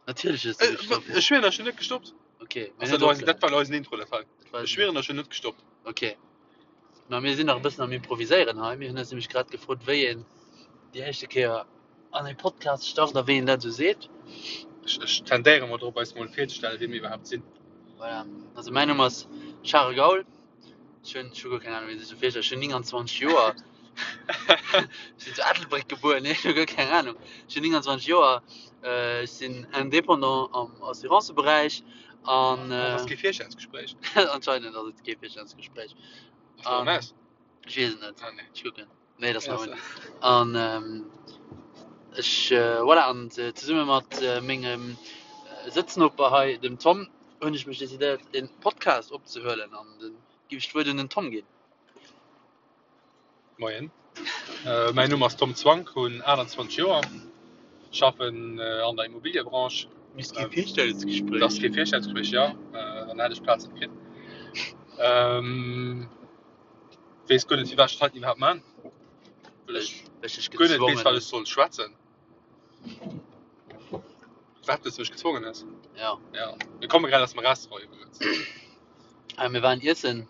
Natierlech hues du gestoppt. Ech schwieren, ech hunn net gestoppt. Okay. Ass dat eisen, dat war eisen Intro, dat war. Ech schwieren, ech hunn net gestoppt. Okay. Ma mir sinn nach e bëssen am Improviséieren hei. Mir hunn eis nämlech grad gefrot, wéi een déi éischte Kéier an e Podcast start a wéi een dat esou seet. Ech, ech tendéiere mol drop, eis mol virzestellen, wie mir iwwerhaapt sinn. Voilà. Also mäin Numm ass Charel Gaul. Ech hunn, ech hu guer keng Ahnung, wéi een sech esou virstellt. Ech hunn 29 Joer. Ech sinn zu Ettelbréck gebuer, nee, ech hu guer keng Ahnung. Ech hunn 29 Joer. Ech sinn Indépendant am Assuranceberäich an. Dat ass kee Virstellungsgespréich. Anscheinend ass et kee Virstellungsgespréich. Ass dat erëm aus? Ech weess et net. Ah, nee. Ech kucken. Nee, dat ass nach un. An ech, voilà, an zesumme mat mengem Sëtznoper hei, dem Tom, hunn ech mech decidéiert, e Podcast opzehuelen. An da géif ech d'Wuert un den Tom ginn. Moien, mäin Numm ass Tom Zwank, hunn 28 Joer, schaffen an der Immobiliëbranche. Misst kee Virstellungsgespréich. Dat ass kee Virstellungsgespréich, jo, dann hätt ech d'Plaz net kritt. Weess guer net, firwat ech dat heiten iwwerhaapt man, well ech guer net weess, wat ech soll schwätzen. Wat, well s du mech gezwongen hues? Jo. Jo, mir komme grad aus dem Restaurant iwwregens. Ah, mir waren iessen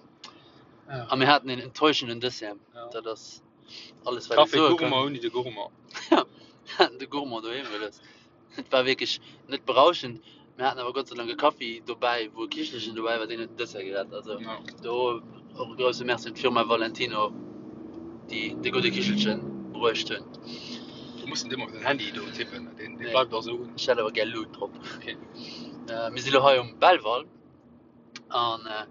a mir haten een enttäuschenden Dessert. Ja. Dat ass alles, wat ech Café soe kann. Gourmand ouni de Gourmand. Mir haten de Gourmand doheem gelooss. Et war wierklech net berauschend. Mir haten awer Gott sei Dank e Kaffi dobäi, wou e Kichelchen dobäi war, deen huet den Dessert gerett. Also Ja. do och e grousse Merci un d'Firma Valentino, déi de gudde Kichelchen bruecht hunn. Du muss net ëmmer op den Handy do tippen, deen, deen Nee. bleift och esou un. Ech hätt awer gär Lut drop. Okay. Äh, mir si lo hei um Belval an äh,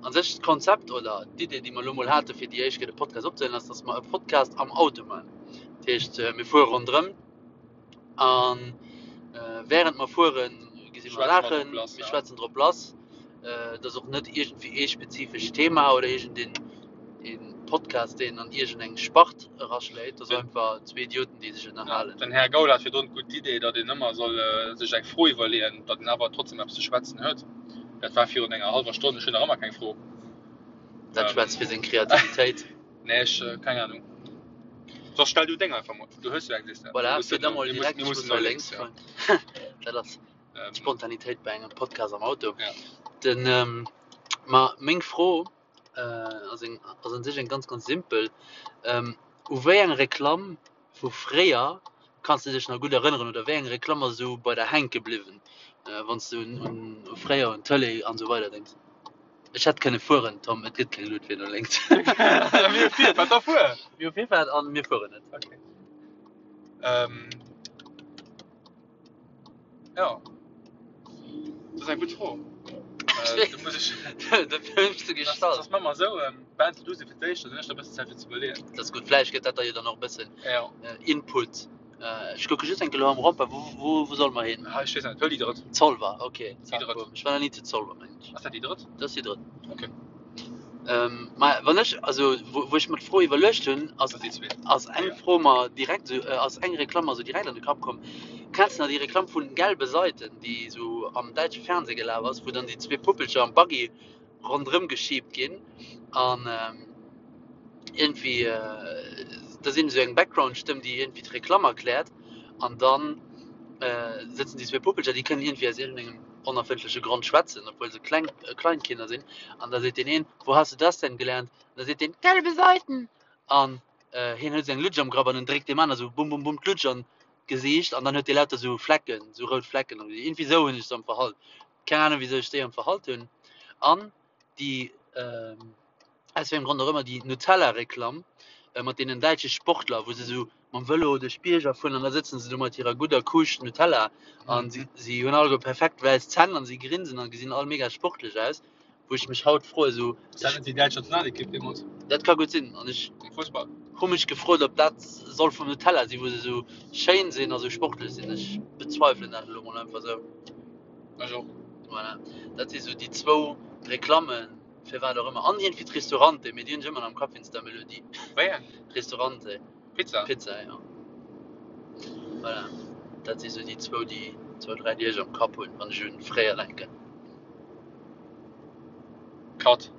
an sech d'Konzept oder d'Idee, déi mer lo mol hate fir déi éischt Kéier de Podcast opzehuelen, ass, dass mer e Podcast am Auto maachen. Dat heescht, äh, mir fuere ronderëm An während mer fueren, gesi mer Saachen, mir schwätzen drop lass. Et ass och net iergendwéi ee spezifescht Thema oder iergendeen Podcast, deen an iergendeng Spart eraschléit. Et ass einfach zwee Idioten, déi sech ënnerhalen. Den Här Gaul hat virdrun d'gutt Idee, datt een ëmmer soll sech eng Fro iwwerleeën, datt een awer trotzdem eppes ze schwätzen huet. Dat war virun enger hallwer Stonn. Ech hunn nach ëmmer keng Fro. Dat schwätzt fir seng Kreativitéit. Nee, ech, keng Ahnung. Soss stell du deng einfach mol. Du hues jo eng, sees de. Voilà, Mir fir da mussen, mol mir direkt, mussen, mir ech mussen muss no no lénks, lénks ja. fueren. Dat ass Ähm, d'Spontanitéit bei engem Podcast am Auto. Ja. Den, ähm, ma meng Fro äh, ass eng, ass un sech eng ganz, ganz simpel. Ähm, u wéi eng Reklamm vu fréier kanns de dech nach gutt erënneren oder wéi eng Reklamm ass esou bei der hänke bliwwen, äh, wann s du un, un fréier, un d'Tëlee an esou weider denks? Ech hätt kënne fueren, Tom, et gëtt keng Luut fir no lénks. Mir hu Virfahrt, da fuer! Mir hu Virfahrt an mir fueren net. Okay. Ähm, ja. Dat ass eng gutt Fro. Äh, do muss ech. Dofir hunn ech se Das, gestallt. das maache mer esou, ähm, beende du se fir d'éischt, dann hunn ech da e bëssen Zäit fir ze iwwerleeën. Dat ass gutt. Vläicht gëtt dat der jo dann och e bëssen Ja. Input. Ech kucke just eng Kéier elo am Rond-point. Wou, wou, wou solle mer hin? Ah, ech weess net. Huel déi drëtt. Zolwer, ok. Déi drëtt. Ech war nach ni zu Zolwer, mengen ech. Ass dat déi drëtt? Dat ass déi drëtt. Ok. Ähm, ma wann ech, also wou, wou ech mer d'Fro iwwerluecht hunn, ass, Dat ass déi zweet. ass eng Fro mer direkt esou, ass eng Reklamm mer esou direkt an de Kapp komm. Kenns de nach déi Reklamm vun Gelbe Seiten, déi esou am däitsche Fernseh gelaf ass, wou dann déi zwee Puppelcher am Buggy ronderëm geschiebt ginn an iergendwéi da sinn esou eng Background-Stëmm, déi iergendwéi d'Reklamm erkläert an dann sëtzen déi zwee Puppelcher, déi kënnen iergendwéi aus iergendengem onerfëndleche Grond schwätzen, obwuel se kleng Kleinkinder sinn an da seet deen een, Wo hast du das denn gelernt? An da seet deen, Gelbe Seiten! An hien huet esou eng Lutsch am Grapp an en dréckt deem aner esou bum bum bum d'Lutsch an d'Gesiicht an dann huet dee lauter esou Flecken, esou rout Flecken am Gesiicht. Iergendwéi esou hunn ech se am Verhalt. Keng Ahnung wisou ech déi am Verhalt hunn. An déi, aus wéi engem Grond och ëmmer, déi Nutella-Reklamm mat deenen däitsche Sportler, wou se esou mam Vëlo duerch d'Bierger fueren an da sëtzen se do mat hirer gudder Kuuscht Nutella an si, si hunn alleguer perfekt wäiss Zänn an si grinsen an gesinn all mega sportlech aus, wou ech mech haut froe sou. Ass dat net déi däitsch Nationalekipp deemools? Dat ka gutt sinn. An ech. Am Fussball? Hu mech gefrot, ob dat soll vum Nutella sinn, wou se esou schéin sinn a sou sportlech sinn. Ech bezweifelen dat elo mol einfach esou. Ech och. Voilà, dat si sou déi zwou Reklammen, firwat och ëmmer. An iergendwéi d'Ristorante, mee déi hunn ech ëmmer nach am Kapp wéinst der Melodie. Wéi eng? Ristorante. Pizza? Pizza, jo. Voilà, dat si sou déi zwou, déi zwou, dräi, déi ech am Kapp hunn, wann ech un fréier denken. Cut.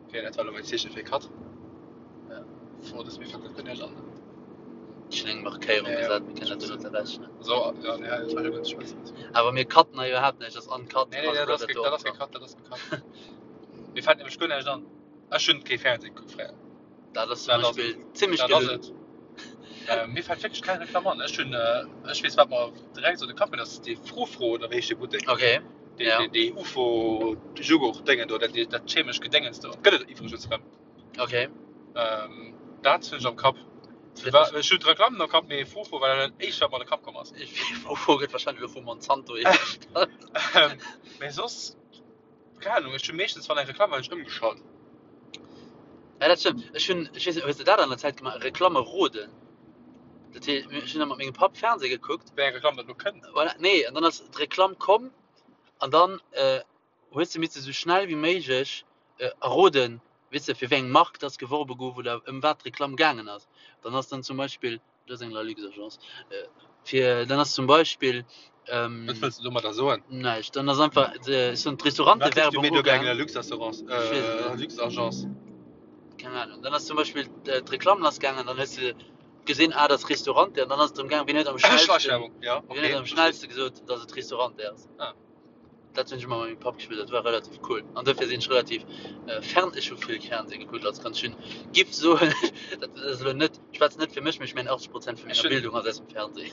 Ok, dat war elo mäin Zeeche fir Cut. Ja. Fro, dass mir fält dat guer näischt an. Ech hunn eng Markéierung Ja, ja. gesat, mir kënnen dat duerno zerrechnen. So, ja, nee, dat war jo net schwätzen. Awer mir cutten hei iwwerhaapt näischt, dat ass uncut. Nee, nee, also dat ass bleift ge- do dat ass och gecut, dat ass gecut. Mir fält nämlech guer näischt an. Ech hunn kee Fernseh gekuckt fréier. Dat ass zum Dat ass Beispill zimmlech Dat ass gelunn. et. Äh, mir fält wierklech keng Reklamm an. Ech hunn, äh, ech weess, wat mer direkt an de Kapp kënnt, ass dee Frufru oder wéi heescht dee Buttek? Okay, Dee, ja. dee, dee UFO-Joghurt-Déngen do, dat, dat chemesch Gedéngens do. Gëtt et iwwregens erëm. Okay. Ähm, dat hunn ech am Kapp. Fir War, ech hunn d'Reklamm am Kapp, mee Frufru war dat éischt, wat mer an de Kapp komm ass. Frufru gëtt wahrscheinlech elo vu Monsanto hiergestallt. Ähm, mee soss, keng Ahnung, ech hunn meeschtens, wann eng Reklamm war, hunn ech ëmgeschalt. Ja, dat stëmmt. Ech hunn, ech weess net, hues de dat an der Zäit gemaach, Reklamme roden? Dat heescht, ech hunn da mat mengem Papp Fernseh gekuckt. Wéi eng Reklamm dat elo kënnt. Voilà, nee, an dann ass d'Reklamm komm an dann hues de misse sou schnell wéi méiglech erroden, weess de, fir wéi eng Mark dass geworbe gouf oder ëm wat d'Reklamm gaangen ass. Dann ass dann zum Beispill, dat ass eng Lalux-Agence, fir dann ass zum Beispill. Wat wëlls de domadder soen? Näischt, dann ass einfach, ech soen, d'Restaurantewerbung ugaangen. Lalux-Assurance, Lalux-Agence. Keng Ahnung. Dann ass zum Beispill d'Reklamm lassgaangen, dann hues de gesinn, ah, dat ass Restaurante, an dann ass et drëm gaangen, wien huet am schnellsten, wien huet am schnellste gesot, dass et Restaurante ass. Dat hunn ech ëmmer mat mengem Papp gespillt, dat war relativ cool. An dofir sinn ech relativ fern, ech hu vill Fernseh gekuckt als Kand. Ech hunn, giff soen, dat ass elo net, ech schwätzen net fir mech, mee ech mengen 80 Prozent vu menger Bildung ass aus dem Fernseh.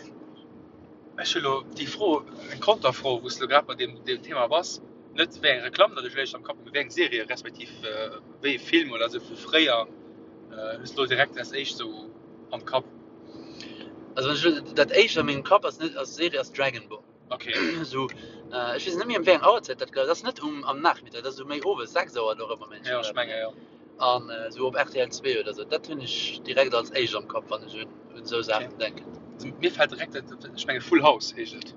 Ech hu lo déi Fro, eng Konterfro, wou s de lo grad bei deem Thema bass, net wéi eng Reklamm datt ech léischt am Kapp hunn, mee wéi eng Serie respektiv wéi e Film oder esou vu fréier hues de lo direkt als éischt esou am Kapp? Also wann ech elo, dat éischt a mengem Kapp ass net, als Serie ass Dragon Ball. Okay. So, äh, ech weess net méi ëm wéi eng Auerzäit dat gelaf ass. Dat ass net um, am Nachmittag, dat ass esou méi owes, 6 Auer do erëm am Ja, ech menge jo. An äh, esou op rtl 2 oder sou. Dat hunn ech direkt als éischt am Kapp, wann ech un, un esou Saachen denken. Also, mir fält direkt dat, ech menge Full House heescht et.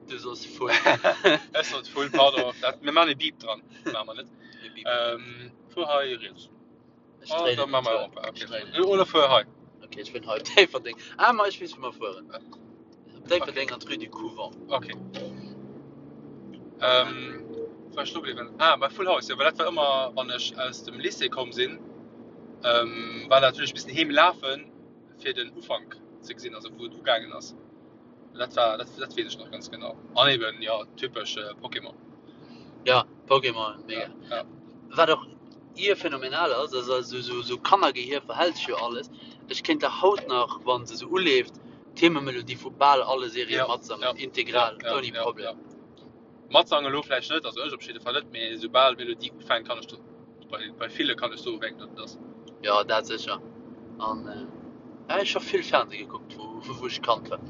Du sos Full. Ech sot Full, pardon. Dat, mir maachen e Beep dran. Maache mer net. E Beep. Ähm, fuer hei riets. Ech Ah, dréinen da den maache mer Tour. Europa. Ech Okay. dréinen den Oder Tour. fuer hei. Okay, ech fueren hei op Déifferdeng. Ah, ma ech weess, wou mer fueren. Op Déifferdeng an d'Rue du Couvent. Okay. Ähm, wou war ech stoe bliwwen? Ah, bei Full House, jo, well dat war ëmmer, wann ech aus dem Lycée komm sinn, ähm, war dat hunn ech missen heem lafen, fir den Ufank ze gesinn, also wou et ugaangen ass. Dat war, dat, dat weess ech nach ganz genau. An eben, jo, typesch Pokémon. Ja, Pokémon, mega. Ja, ja. Wat och ier phänomenal ass, ass also sou, sou Kannergehier verhält sech jo alles. Ech kéint der haut nach, wa se sou uleeft, d'Thememelodie vu bal alle Serië Ja, matsangen, ja, integral, ja, ouni ja, Problem. ja. Matsangen elo vläicht net, also ech op jidde Fall net, mee soubal d'Melodie ufänkt, kann ech do, bei, bei ville kann ech soen, wéi eng dat et ass. Jo, dat sécher. An ja, ech hu vill Fernseh gekuckt, wou, wou ech Kand war.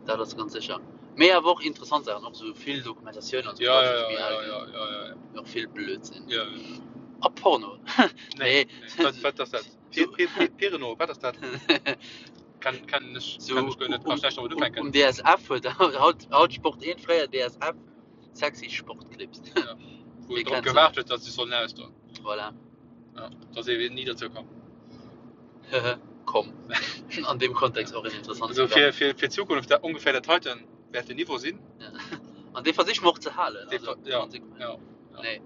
Dat ass ganz sécher. Mee awer och interessant Saachen, och sou vill Dokumentatiounen an sou Ja, Quatsch, ja, wou ech méi ja, al ja, ginn. ja, ja, ja, ja. Mee och vill Blödsinn. Ja, ja. A Porno. Nee, Nee. nee. Wat, wat ass dat? So, Pi, pi, pi, Pirno, wat ass dat? Kann, kann ech, so kann ech guer net, kann um, ech näischt domat um, ufänken. um DSF huet haut, haut Sport 1, fréier DSF, sexy Sportclips. Ja. Wou Wie drop kennt se gewaart net? huet, datt se sollen ausdoen. Voilà. Ja, dat ass eben ni dozou komm. Komm. An deem Kontext och en interessant Also fir, fir, fir d'Zukunft, dat ongeféier dat heiten wäert den Niveau sinn. Ja. An dee versiche mer och ze halen. Dee Also, ver- ja, konsequent. ja, ja. Nee.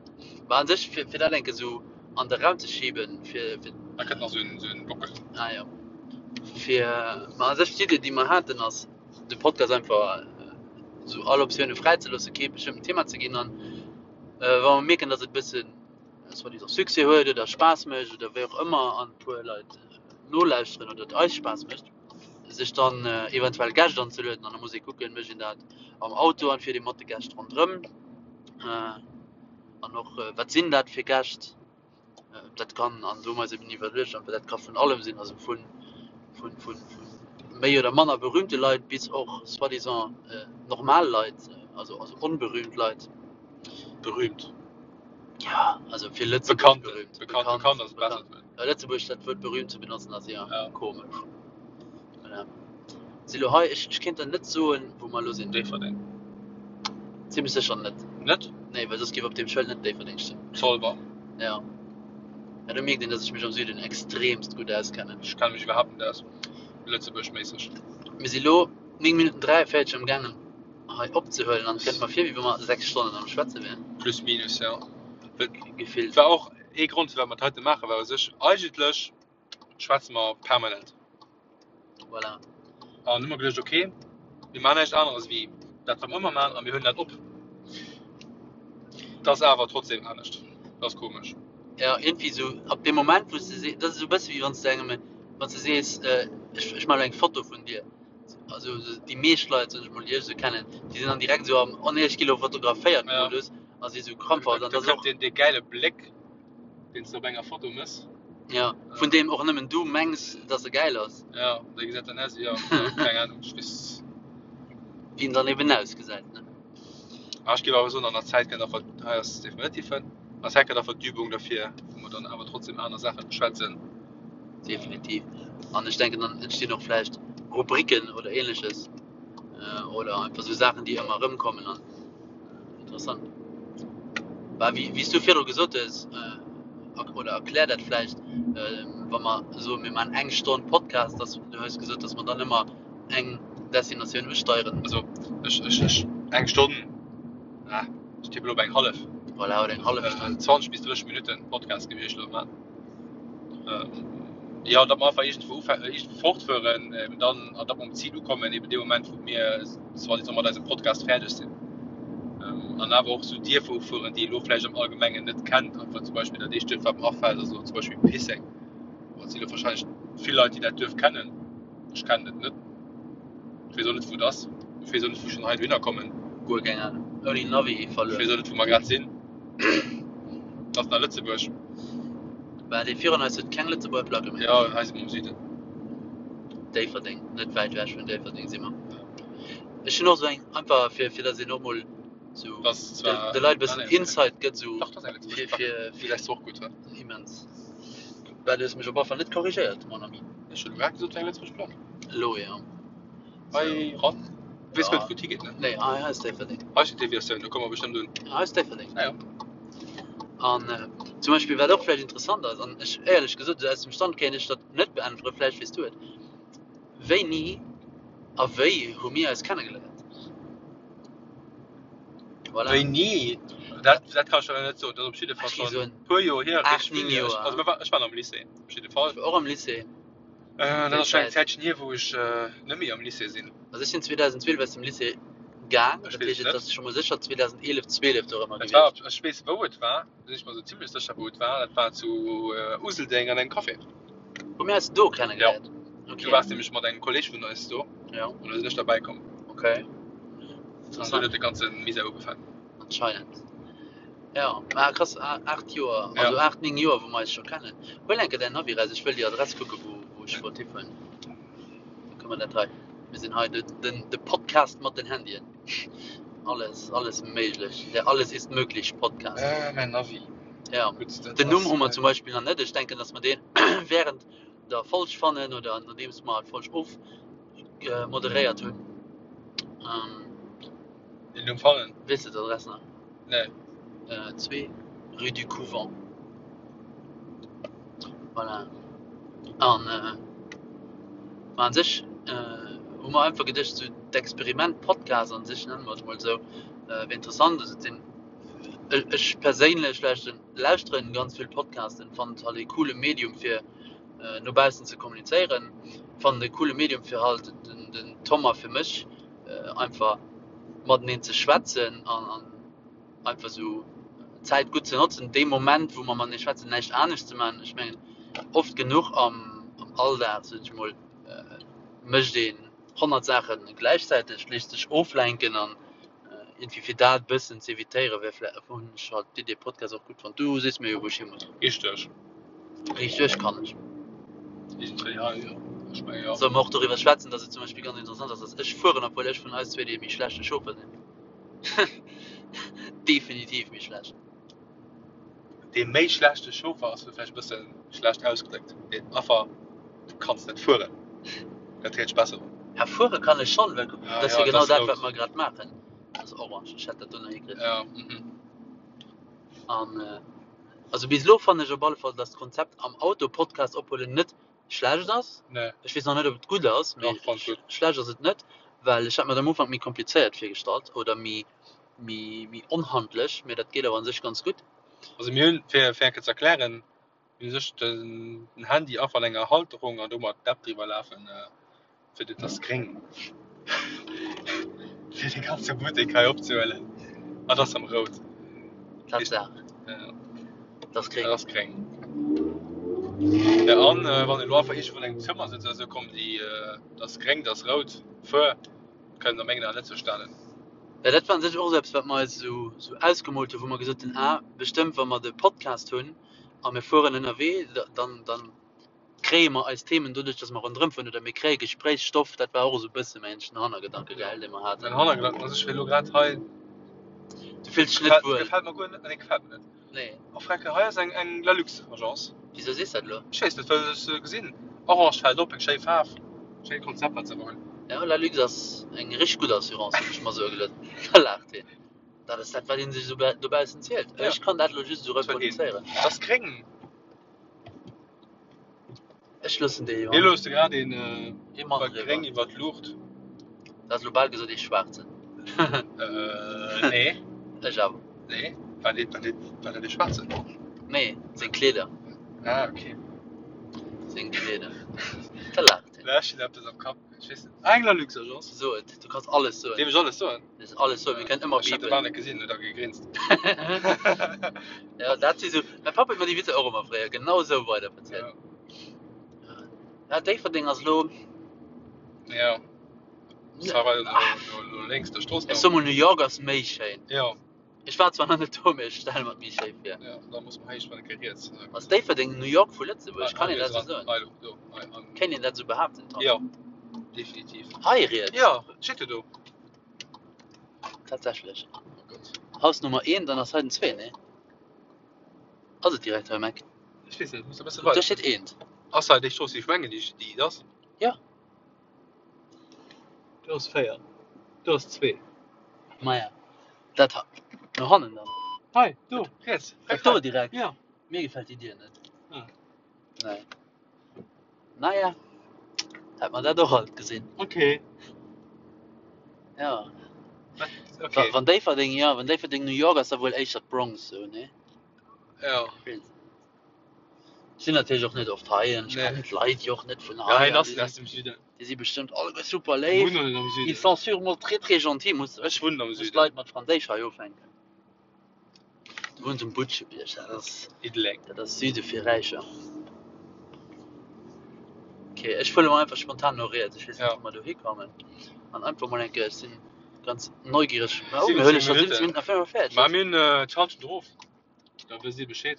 Mä an sech, fir, fir dat enke sou an de Raum ze schiben, fir, fir, Da kënnt nach sou en, sou en Bockel. ah jo. Fir, ma an sech d'Idee, déi mer haten, ass, de Podcast einfach sou all Optioune fräi ze loossen, kee bestëmmten Thema ze ginn an, äh, wa mer mierken, datt et e bëssen soi-disant Succès huet oder Spaass mécht oder wéi och ëmmer an e puer Leit nolauschteren oder et eis Spaass mécht, sech dann eventuell Gäscht anzelueden an da muss ee kucken, mécht een dat am Auto an fiert ee mat de Gäscht ronderëm an och wat sinn dat fir Gäscht, dat kann, an do hu mer eis eben iwwerluecht, einfach dat ka vun allem sinn, also vun vun vun méi oder manner berühmte Leit bis och soi-disant normal Leit, also also onberühmt Leit. Berühmt. Ja, also fir Lëtzebuerg Bekannt, berühmt. bekannt, bekannt ass besser. Ja, Lëtzebuerg dat Wuert berühmt ze benotzen ass ja, Ja. komesch. Voilà. Si lo hei, ech, ech kéint der net soen, wou mer elo sinn. Déifferdeng. Zimmlech sécher net. Net? Nee, well soss géif op deem Schëld net Déifferdeng stoen. Zolwer. Ja. Ja, do mierkt een, dass ech mech am Süden extremst gutt auskennen. Ech kenne mech iwwerhaapt net aus, Lëtzebuerg-méisseg. Mir si lo 9 Minutten 43 am gaangen hei opzehuelen an et kënnt mer vir, wéi wa mer 6 Stonnen am Schwätze wären. Plus minus, ja. Gefillt. War och ee Grond, firwat mer dat heite maachen, well u sech eigentlech schwätze mer permanent. Voilà. An hu mer geduecht, ok, mir maachen näischt aneres wéi dat, wat mer ëmmer maachen a mir huelen dat op. Dat ass awer trotzdem anescht. Dat ass komesch. Ja, iergendwéi esou ab deem Moment, wou s de sees, dat ass esou e bësse wéi wann s de engem, wann s de sees, ech, ech maachen elo eng Foto vun dir. Also déi meescht Leit, soen ech mol, déi ech esou kennen, déi sinn dann direkt esou am Onneech gi lo fotograféiert Modus a si esou krampfhaft. An da kënnt deen, dee gäile Bléck, deen s de op enger Foto mëss. Ja, vun deem och nëmmen du mengs, dass e gäil ass. Ja, dee gesäit dann aus, jo, keng Ahnung, ech weess. Wéi en dann eben ausgesäit, ne? Ah, ech géif awer soen, an der Zäit kënnt einfach, hei ass definitiv en, an der Zäit kënnt einfach d'Übung derfir, wou mer dann awer trotzdem aner Saache beschwätzen. Definitiv. An ech denken, dann entstinn och vläicht Rubriken oder Ähnleches oder einfach esou Saachen, déi ëmmer erëmkommen an interessant. Bah, wéi, wéi s du virdru gesot hues, oder erklär dat vläicht, wa mer soen, mir maachen eng Stonn Podcast, dass, du hues gesot, dass mer dann ëmmer eng Destinatioun usteieren. Also ech, ech, ech, eng Stonn, ah, ech tippen op eng hallef. Voilà, oder eng hallef Stonn. 20 bis 30 Minutten Podcast géif ech elo maachen. Jo, datt mer einfach iergendwou ufänken, iergendwou fortfueren, eben dann, an datt mer um Zil ukommen, eben dee Moment, wou mir quasi soe mat eisem Podcast fäerdeg sinn. An awer och esou Dierfer ufueren, déi ee lo vläicht am Allgemengen net kennt. Einfach zum Beispill dat éischt Duerf, wat mer afält, ass elo zum Beispill Pisseng. Bon, et si lo warscheinlech vill Leit, déi dat Duerf kennen. Ech kennen et net. Ech weess och net, wou et ass. Ech weess och net, wou ech schonn hei dohinner kommen. Guer keng Ahnung. Ouni Navi verluer. Ech weess och net, wou mer grad sinn. Et ass nach Lëtzebuerg. Bah, dee virun eis huet keng Lëtzebuerger Placke méi. Jo, hei si mer am Süden. Déifferdeng, net wäit ewech vun Déifferdeng si mer. Ech hunn och esou eng, einfach fir, fir datt een och mol esou de Leit e bëssen Insight gëtt, esou fir, fir. Déi lässt och gutt, wa? Immens. Bah, du hues mech op alle Fall net korrigéiert, mon ami. Ech hunn elo grad gesot, et wär eng Lëtzebuerg Plack. Elo, jo. Hei ran? Weess net, wou et higeet, ne? Nee, hei ass Déifferdeng. Hei steet Deviatioun, do komme mer bestëmmt un. Hei ass Déifferdeng. Ah jo. An zum Beispill, wat och vläicht interessant ass, an ech, éierlech gesot, esou aus dem Stand kéint ech dat net beäntweren, vläicht weess du et, Wéini a wéi hu mir eis kennegeléiert? Voilà. Wéini? Dat, dat kann ech der net soen. Dat ass op jidde Fall schonn e puer Joer hier. 8, 9 Joer. Also, ech war am Lycée, op jidde Fall. Ech war och am Lycée. Dat ass schonn eng Zäitchen hier, wou ech net méi am Lycée sinn. Also ech sinn 2012 aus dem Lycée gaang, dat heescht et ass scho mol sécher 2011, 12 dorëmmer gewiescht. Et war, ech weess wou et war, do sinn ech mer esou zimlech sécher wou et war, dat war zu Useldeng an engem Café. Hu mir eis do kennegeléiert? Jo. Du waars nämlech mat engem Kolleg vun eis do. Jo. An da sinn ech derbäi komm. Okay. An dunn huet de ganze Misär ugefaangen. Anscheinend. Ja, ah, krass, 8 Joer, also ja. 8, 9 Joer, wou mer eis scho kennen. Huel enke däin Navi raus, ech wëll déi Adress kucke wou, wou ech wollt hifueren. Da kënne mer dat hei. Mir sinn hei de, den, de Podcast mat den Handyen. Alles, alles méiglech. Der Alles ist möglich Podcast. Äh, mäin Navi. Ja. Gut, dat Den Numm hu mer zum Beispill nach net. Ech denken, dass mer deen während der Folg fannen oder nodeems mer d'Folg of moderéiert hunn. Ähm, Den Numm fannen? Weess de d'Adress nach? Nee. 2, rue du Couvent. Voilà. An ma an sech hu mer einfach geduecht, sou d'Experiment Podcast an sech, nenne mer et emol esou, wier interessant. Also et sinn, ech perséinlech lauschteren, lauschteren ganz vill Podcasten, fannen et halt ee coole Medium fir no baussen ze kommunizéieren, fannen et e coole Medium fir halt den, den Tom a fir mech einfach mateneen ze schwätzen an an einfach esou d'Zäit gutt ze notzen, dee Moment wou mer matenee schwätzen, näischt anescht ze maachen. Ech mengen oft genuch am am Alldag, sot ech mol, mécht een 100 Saache gläichzäiteg, léisst sech oflenken an iergendwéi fir dat e bëssen ze evitéieren, wär vläicht, hunn ech halt d'Idee Podcast och gutt fonnt. Du sees mir jo wou ech hi muss. Richteg. Richteg kann ech. Iergendwéi hei, jo. Ech menge jo. Solle mer och doriwwer schwätzen, dass et zum Beispill ganz interessant ass, dass ech fueren, obwuel ech vun eis zwee dee méi schlechte Chauffeur sinn. Definitiv méi schlecht. Dee méi schlechte Chauffer ass elo vläicht e bësse schlecht ausgedréckt. Deen Affer, du kanns net fueren. Dat héiert sech besser un. Ja, fuere kann ech schonn, well dat ass jo genau dat, wat mer grad maachen. Dat ass orange, ech hätt dat do nach hikritt. Ja, mhm. An also bis elo fannen ech op alle Fall, dass d'Konzept am Auto Podcast ophuelen net schlecht ass. Nee. Ech weess nach net, ob et gutt ass, mee Dach, fand gutt. schlecht ass et net, well ech hat mer dat am Ufank méi komplizéiert virgestallt oder méi méi méi onhandlech, mee dat geet awer an sech ganz gutt. Also mir hunn, fir fir eng Kéier ze erklären, mir hunn sech den Handy einfach an enger Halterung an domat d'App driwwer lafen. Fir dat ass gréng. Fir de ganze Buttek hei opzehuelen. Ah, dat ass am Rout. Tatsaach. Ja. Dat ass gréng. Dat ass gréng. Ja, an äh, wann elo einfach iergendwou an engem Zëmmer sëtzt oder sou, kommen déi, äh, dat ass gréng, dat ass rout, fuer, kënnen a mengen Aen net verstanen. Ja, dat war un sech och esou eppes, wat mer eis esou, esou ausgemoolt hunn, wou mer gesot hunn, ah, bestëmmt, wa mer de Podcast hunn a mir fueren ënnerwee, dann, dann kréie mer eis Themen doduerch, dass mer ronderëm fueren oder mir kréie Gespréichsstoff. Dat war och esou e bësse mengen ech den Hannergedanke, gell, dee mer haten. Mäin Hannergedanken ass, ech wéi elo grad hei. Du fills dech net wuel? Gefält mer guer net. Nee, gefält mer net. Nee. Oh Frecke, hei ass eng, eng Lalux Agence. Wisou sees dat elo? Ech weess net, well ech se gesinn. Orange fält op, eng schéi Faarf. Schéint Konzept, wat se awer hunn. Ja, Lalux ass eng richteg gutt Assurance, hunn ech mer soe gelooss. Da laacht hien. Dat ass dat, wat ee sech esou dobaussen zielt. Ja. Ech kann dat elo just esou reproduzéieren. Dat ass gréng. Ech loossen dee jo. Mir loosse grad een Ee Mann iwwer driwwer. gréng iwwer d'Luucht. Du has elo bal gesot ee schwaarzen. Äh, nee. Ech awer. Nee, war dee, war dee, war dat ee schwaarzen? Nee, seng Kleeder. Ah, okay. Seng Kleeder. Da laacht hien. Ech hunn eppes am Kapp. Ech weess net. Ah, eng Lalux Agence. So et, du kanns alles soen. Dierf ech alles soen? Du kanns alles soen, mir kënnen ëmmer Ech hat de bipen. Bal net gesinn, huet da gegrinst. Ja, dat si sou, mäi Papp huet mer déi Witzer och ëmmer fréier genau esou weider verzielt. Ja. Ja, Déifferdeng ass elo. Ja. Ça va, no, no, no lénks der Strooss. Ech soe mol, New York ass méi schéin. Ja. Ech war zwar nach net do, mee ech stelle mer et méi schéi vir. Ja, da muss mer héich, wann e riets. Ass Déifferdeng New York vu Lëtzebuerg? Kann een dat esou soen? Hei, do, hei, an. Kéint een dat esou behaapten, Tom? Jo, definitiv. Hei riets? Jo, steet jo do. Tatsächlech. Oh Gott. Haus Nummer 1, dann ass hei den 2, nee? Ass et direkt hei um Eck? Ech weess net, muss e bësse Do weider. steet eent. Ass hei déi Strooss, déi ech mengen, déi, déi et ass? Jo. Do ass 4, do ass 2. Maja, dat ha no hannen dann. Hei, do, riets. Dat do direkt? Ja. Mir gefält déi Dier net. Ah. Nee. Naja, hätt mer dat och alt gesinn. Okay. Ja. Okay. Wann Déifferdeng, ja, wann Déifferdeng New York ass, da wuel éischter d'Bronx, sou, nee? Ja. Ech sinn natierlech och net oft hei an ech Nee. kennen d'Leit jo och net vun Ja, hei. hien an ass déi aus sinn, dem Süden. déi si bestëmmt alleguer super Ech léif. wunnen am Ils Süden. sont sûrement très très gentils, muss, Ech wunnen am muss Süden. d'Leit mat Franséisch hei ufänken. Du wunns um Butschebierg, dat ass, Diddeleng. dat ass Süde fir Räicher. Okay, ech fuere mol einfach spontan no riets. Ech weess net, Ja. wou mer do hikommen. An einfach mol eng Kéier, ech sinn ganz neugiereg. Ma oh, 17 mir huele scho 17 Minutten. Minutten a 45. Ma mir hunn d'Halschent erof. Da wësst Dir Bescheed.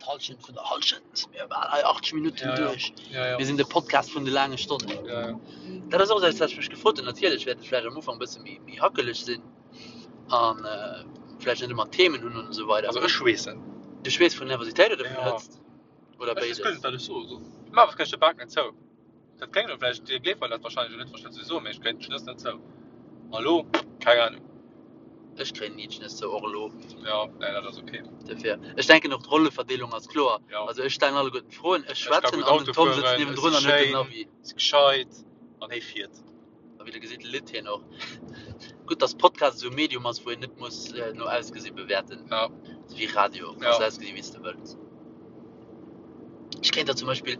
D'Halschent vun der Halschent si mir bal hei 80 Minutten Ja, ja. duerch. Ja, ja. Mir sinn de Podcast vun de laange Stonnen. Ja, ja. Dat ass och eppes, wat ech mech gefrot hunn. Natierlech wäert et vläicht am Ufank e bësse méi, méi hackeleg sinn an äh, vläicht net ëmmer Themen hunn an esou weider. Also ech schweessen. Du schweess vun Nervositéit oder vun Ja. Hëtzt? Oder Ech weess guer béides? net, wat ech soe soll. Ma was kréich de Bak net zou. Dat kléngt elo vläicht, Dir gleeft mer dat wahrscheinlech elo net, wann ech dat esou soen, mee ech kréien d'Schnëss net zou. A lo, keng Ahnung. Ech kréien ni d'Schnëss zou, och elo. Jo, nee, dat ass ok. Dofir, ech denken och d'Rolleverdeelung ass kloer. Jo. Also ech stellen alleguerten d'Froen, ech Ech ka schwätzen gutt an den Auto Tom sëtzt fueren, ech niewendrun si an huet den schéin, Navi. si gescheit an hie fiert. A wéi der gesitt, litt hien och. Gutt, dass Podcast esou e Medium ass, wou een net muss no Ausgesi bewäerten. Ja. Esou wéi Radio, kanns Ja. ausgesi wéi s de wëlls. Ech kéint der zum Beispill,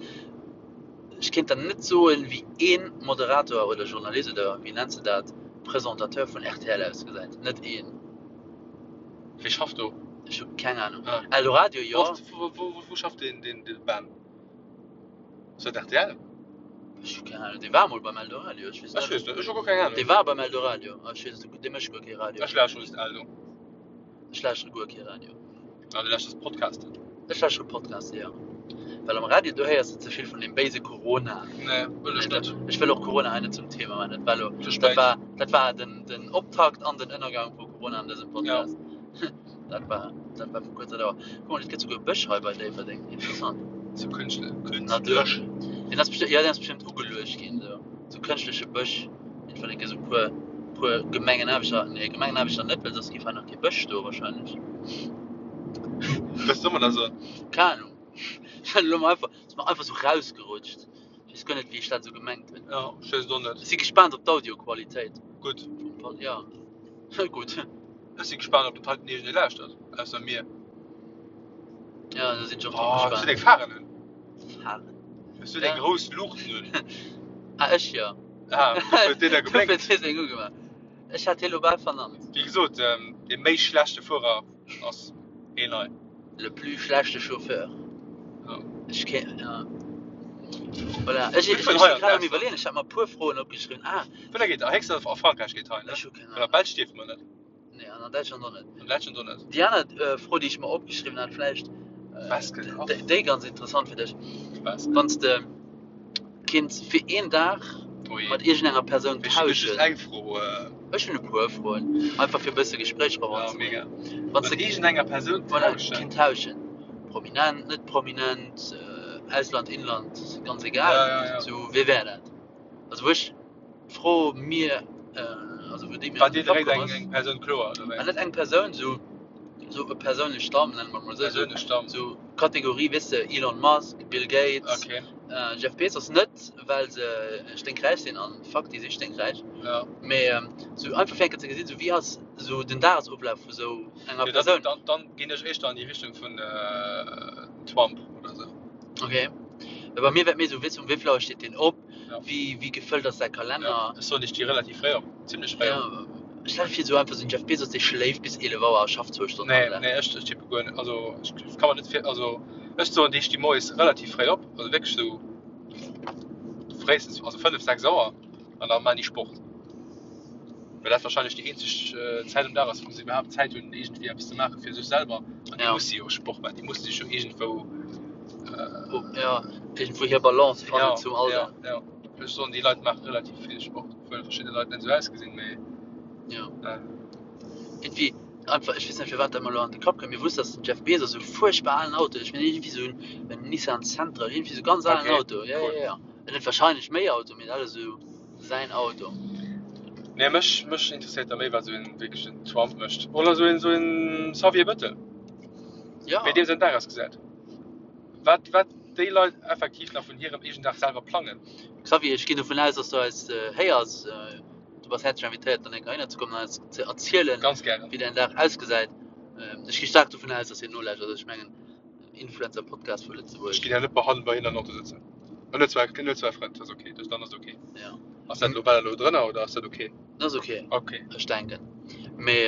ech kéint der net soen, wéi ee Moderator oder Journalist oder wéi nenns de dat, Presentateur vun rtl ausgesäit. Net een. Wie schafft do? Ech hu keng Ahnung. Ah. Eldoradio, jo. Wou, wou, wou schafft deen, deen, dee Ben? Ass dat rtl? Ech hu keng Ahnung. Dee war mol beim Eldoradio, ech weess Ech net. weess net, ech hu guer keng Ahnung. Dee war beim Eldoradio. Ah, ech weess et, dee mécht guer kee Radio. Ech lauschtere just Eldo. Ech lauschtere guer kee Radio. Ah, du lauschterst Podcasten? Ech lauschtere Podcasten, jo. Well am Radio, do héiers de ze vill vun deem béise Corona. Nee, wëll ech net. Ech wëll och Corona hei net zum Thema maachen. Dat war elo, Ze dat spéit. war, dat war den, den Optakt an den Ënnergang vu Corona an dësem Podcast. Dat war, dat war vu kuerzer Dauer. Guck mol, et gëtt souguer Bësch hei bei Déifferdeng. Interessant. Sou kënschtlech. Natur. Kënstlech. Deen ass bestëmmt, ja, deen ass bestëmmt ugeluecht ginn, sou. Sou kënschtleche Bësch. Irgendwann eng Kéier sou puer, puer Gemengenaarbechter, nee, Gemengenaarbechter net, well soss géif hei nach kee Bësch stoe wahrscheinlech. Was soll man da soen? Keng Ahnung. Ech hat elo mol einfach, ass mer einfach sou rausgerutscht. Ech weess guer net, wéi ech dat sou gemengt hunn. Ja, ech weess et och net. Ech si gespaant op d'Audioqualitéit. Gutt. Vum Pod, ja. Gutt. Ech si gespaant, ob dat heiten iergendee lauschtert, ausser mir. Ja, do sinn ech och drop Oh, hues du gespaant. deng Pharen un? Pharen? Hues du deng Ja. grouss Luuchten un? Ah, ech jo. Ah, dofir huet deen da Dofir geblénkt. huet hie seng ugemaach. Ech hat hie lo bal vernannt. Wéi gesot, dee méi schlechte Fuerer ass een hei. Le plus schlechte Chauffeur. Ja. Ech ke ja. Voilà. Ech, Mir ech, fueren ech hei si an grad am d'Ausland. Iwwerleeën. Ech hat mer e puer Froen opgeschriwwen. Ah, Wou geet a héchstens a Frankräich geet hei, ne? ech hu keng Well a Ahnung. Belsch dierfe mer net. Nee, an an Däitschland och net. An Däitschland och net. Déi aner äh, Fro, déi ech mer opgeschriwwen hat, vläicht äh, Was gekocht? déi, déi ganz interessant fir dech. Was? Wann s de kinns fir een Dag Oh je. mat iergendenger Persoun Ech hunn just tauschen. eng Fro. Äh, Ech hunn e puer Froen, einfach fir e bësse Gespréich ja, eranzebréngen. mega. Wann s Mat de iergendenger Persoun voilà, tauschen? kinnt tauschen. Prominent, net prominent, äh, Ausland, Inland, ganz egal. Ja, ja, ja. Sou, wee wär dat? Also wou ech d'Fro mir, äh, also wou déi mir War an de dir Kapp direkt komm eng, ass, eng Persoun kloer, oder ah, wéi? net eng Persoun, sou, sou e persounlech Stamm, nenne mer et mol esou, sou, Persounlech Stamm. sou Kategorie, weess de, Elon Musk, Bill Gates, Okay. äh, Jeff Bezos, net well se sténkräich sinn, an fuck, déi si sténkräich, Ja. mee ähm, sou einfach fir eng Kéier ze gesinn, sou wéi ass sou den Dagesoflaf vu sou enger Jo, dann, Persoun. dann, dann ginn ech éischter an déi Richtung vun äh, Trump oder sou. Okay. Well bei mir wär et méi sou, weess de, um wéi vill Auer steet deen op, Ja. wéi, wéi gefëllt ass säi Kalenner. Ja, ech soen, ech sti relativ fréi op, zimmlech fréi op. Ja, stell dir vir, sou einfach sou den Jeff Bezos, dee schléift bis 11 Auer a schafft zwou Stonnen Nee, am Dag. nee, ech, ech tippe guer net. Also, ech kann mer net vir, also ech soen, déi sti moies relativ fréi op, also wierklech sou fréistens, also 5, 6 Auer an da maan déi Sport. Well dat wahrscheinlech déi eenzeg Zäit am Dag ass, wou se iwwerhaapt Zäit hunn, iergendwéi eppes ze maache fir sech selwer. An déi Ja. musse jo Sport maachen, déi musse sech jo iergendwou. Oh, ja, iergendwou hir Balance fannen Ja, zum ja, Alldag. ja. Ech soen, déi Leit maache relativ vill Sport, obwuel verschidde Leit net esou ausgesinn, mee. Ja. Äh. Iergendwéi einfach, ech weess net firwat dat mer elo an de Kapp kënnt, mee wusst dass den Jeff Bezos esou fuerchtbar alen Auto huet. Ech mengen iergendwéi esou en Nissan Sentra, iergendwéi esou ganz alen Okay, Auto. Ja, cool. ja, ja. En huet wahrscheinlech méi Auto, mee dat ass esou säin Auto. Nee, mech, mech interesséiert da méi, wat esou een wierklech en Trump mécht. Oder esou een, esou een Xavier Bettel. Ja. Wéi deem säin Dag ausgesäit. Wat, wat déi Leit effektiv nach vun hirem eegenen Dag selwer plangen. Xavier, ech ginn dovun aus, dass du eis héiers. Du bass häerzlech invitéiert, dann eng Kéier heihinner ze kommen an eis ze erzielen, Ganz gären. wéi däin Dag ausgesäit. Ech gi staark dovun aus, dass hien nolauschtert. Also ech mengen, Influencer-Podcast vu Lëtzebuerg. Ech ginn ja net bei hannen bei hien an Auto sëtzen. En huet zwar, en huet zwar Frënd, dat ass ok, dat dann ass ok. Ja. Ass dat elo, war dat elo drënner oder ass dat ok? Dat ass ok. Ok. Ech denken. Mee,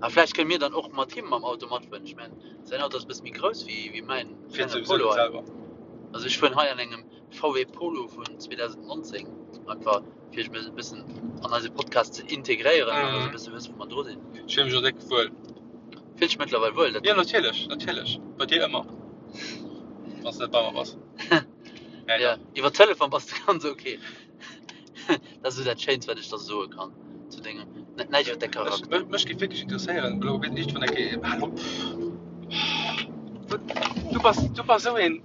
a vläicht kënne mir dann och mat him mam Auto matfueren. Ech mengen, säin Auto ass e bësse méi grouss wéi, wéi mäin Fiert klenge souwisou Polo net hei. selwer. Also ech fueren hei an engem VW Polo vun 2019, einfach fir iech e bëssen an eise Podcast ze integréieren an dass e bësse wësst, wou mer dru sinn. Ech fille mech och déck wuel. Fills dech mëttlerweil wuel? Dat Jo, natierlech, natierlech. Bei dir ëmmer, wann s de net bei mer bass. Nee, Ja, dach. iwwer Telefon bass de ganz ok. Dat ass esou dat Schéinst, wat ech der soe kann zu dengem, net näischt iwwer däi Ech, Charakter. mech géif wierklech interesséieren, elo wéi iergendwann eng Kéier, hal op, du bass, du bass esou een,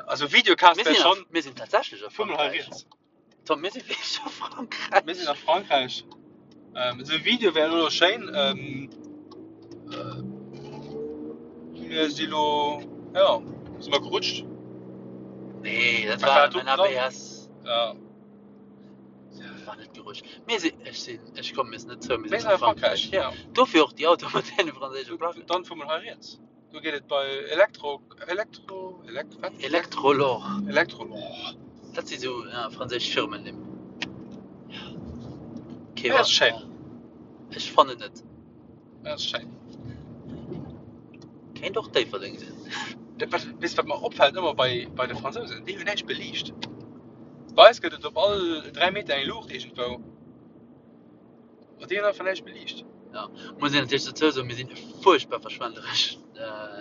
also Videocast Mir wär sinn a, schonn, mir sinn tatsächlech a fuer mol hei Frankräich. riets. Tom, mir si wierklech a Frankräich. Mir sinn a Frankräich. Ähm, esou e Video wär elo schéin. Ähm, äh, mir si lo, ja, si mer gerutscht. Nee, dat Wat war war do mein dran? ABS. Ja. Dat war net gerutscht. Mir si, ech sinn, ech kommen mir net zou, mir Mir sinn sinn a a Frankräich, Frankräich. Ja. ja. Dofir och déi Autoe mat deene franséische Placken. Dann fuer mol hei riets. Do geet et bei Elektro, Elektro, Elekt, wat? Electrolor. Electrolor. Dat si sou ja, franséisch Firmennimm. Okay, Ja, ass schéin. Ech fannen net. Ja, ass schéin. Kéint och Déifferdeng sinn. Dat, wat, weess wat mer opfält ëmmer bei, bei de Fransousen? Déi hunn näischt beliicht. Bei eis gëtt et op all 3 Meter eng Luucht iergendwou. Ma déi hunn einfach näischt beliicht. Ja, muss een natierlech dozou soen, mir sinn fuerchtbar verschwenderesch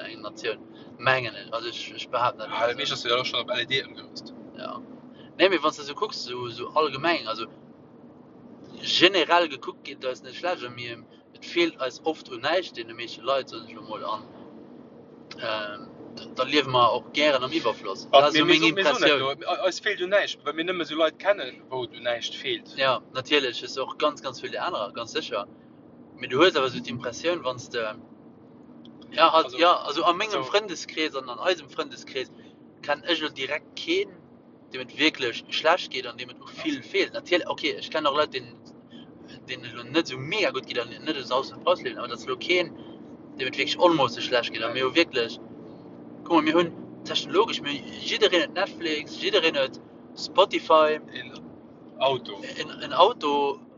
eng Natioun, mengen ech. Also ech, ech behaapten dat Ah, emol meescht esou. ass jo och schonn op LED ëmgerüst. Ja. Nee, mee wann s de esou kucks, esou, esou allgemeng, also generell gekuckt geet et eis net schlecht a mir, et feelt eis oft un näischt, deene meeschte Leit, soen ech elo mol, an da liewe mer och gären am Iwwerfloss. Dat ass Mir, esou mir, meng so, mir soen dat Impressioun. elo, eis feelt un näischt, well mir nëmme esou Leit kennen, wou et un näischt feelt. Ja, natierlech hues de och ganz, ganz vill déi anerer, ganz sécher. Mee du hues awer esou d'Impressioun, wann s de, ja, halt, Also, ja, also a mengem also, Frëndeskrees an an eisem Frëndeskrees kennen ech elo direkt keen, deem et wierklech schlecht geet an deem et u vill feelt. Natierlech, okay, ech kennen och Leit, deenen deenen et elo net esou mega gutt geet an net esou Saus und Braus liewen, awer et ass elo keen, deem et wierklech onmoosseg schlecht geet. A mir hu wierklech, kuck mol, mir hunn technologesch, mir hunn, jiddereen huet Netflix, jiddereen huet Spotify. Een. Auto. En, en Auto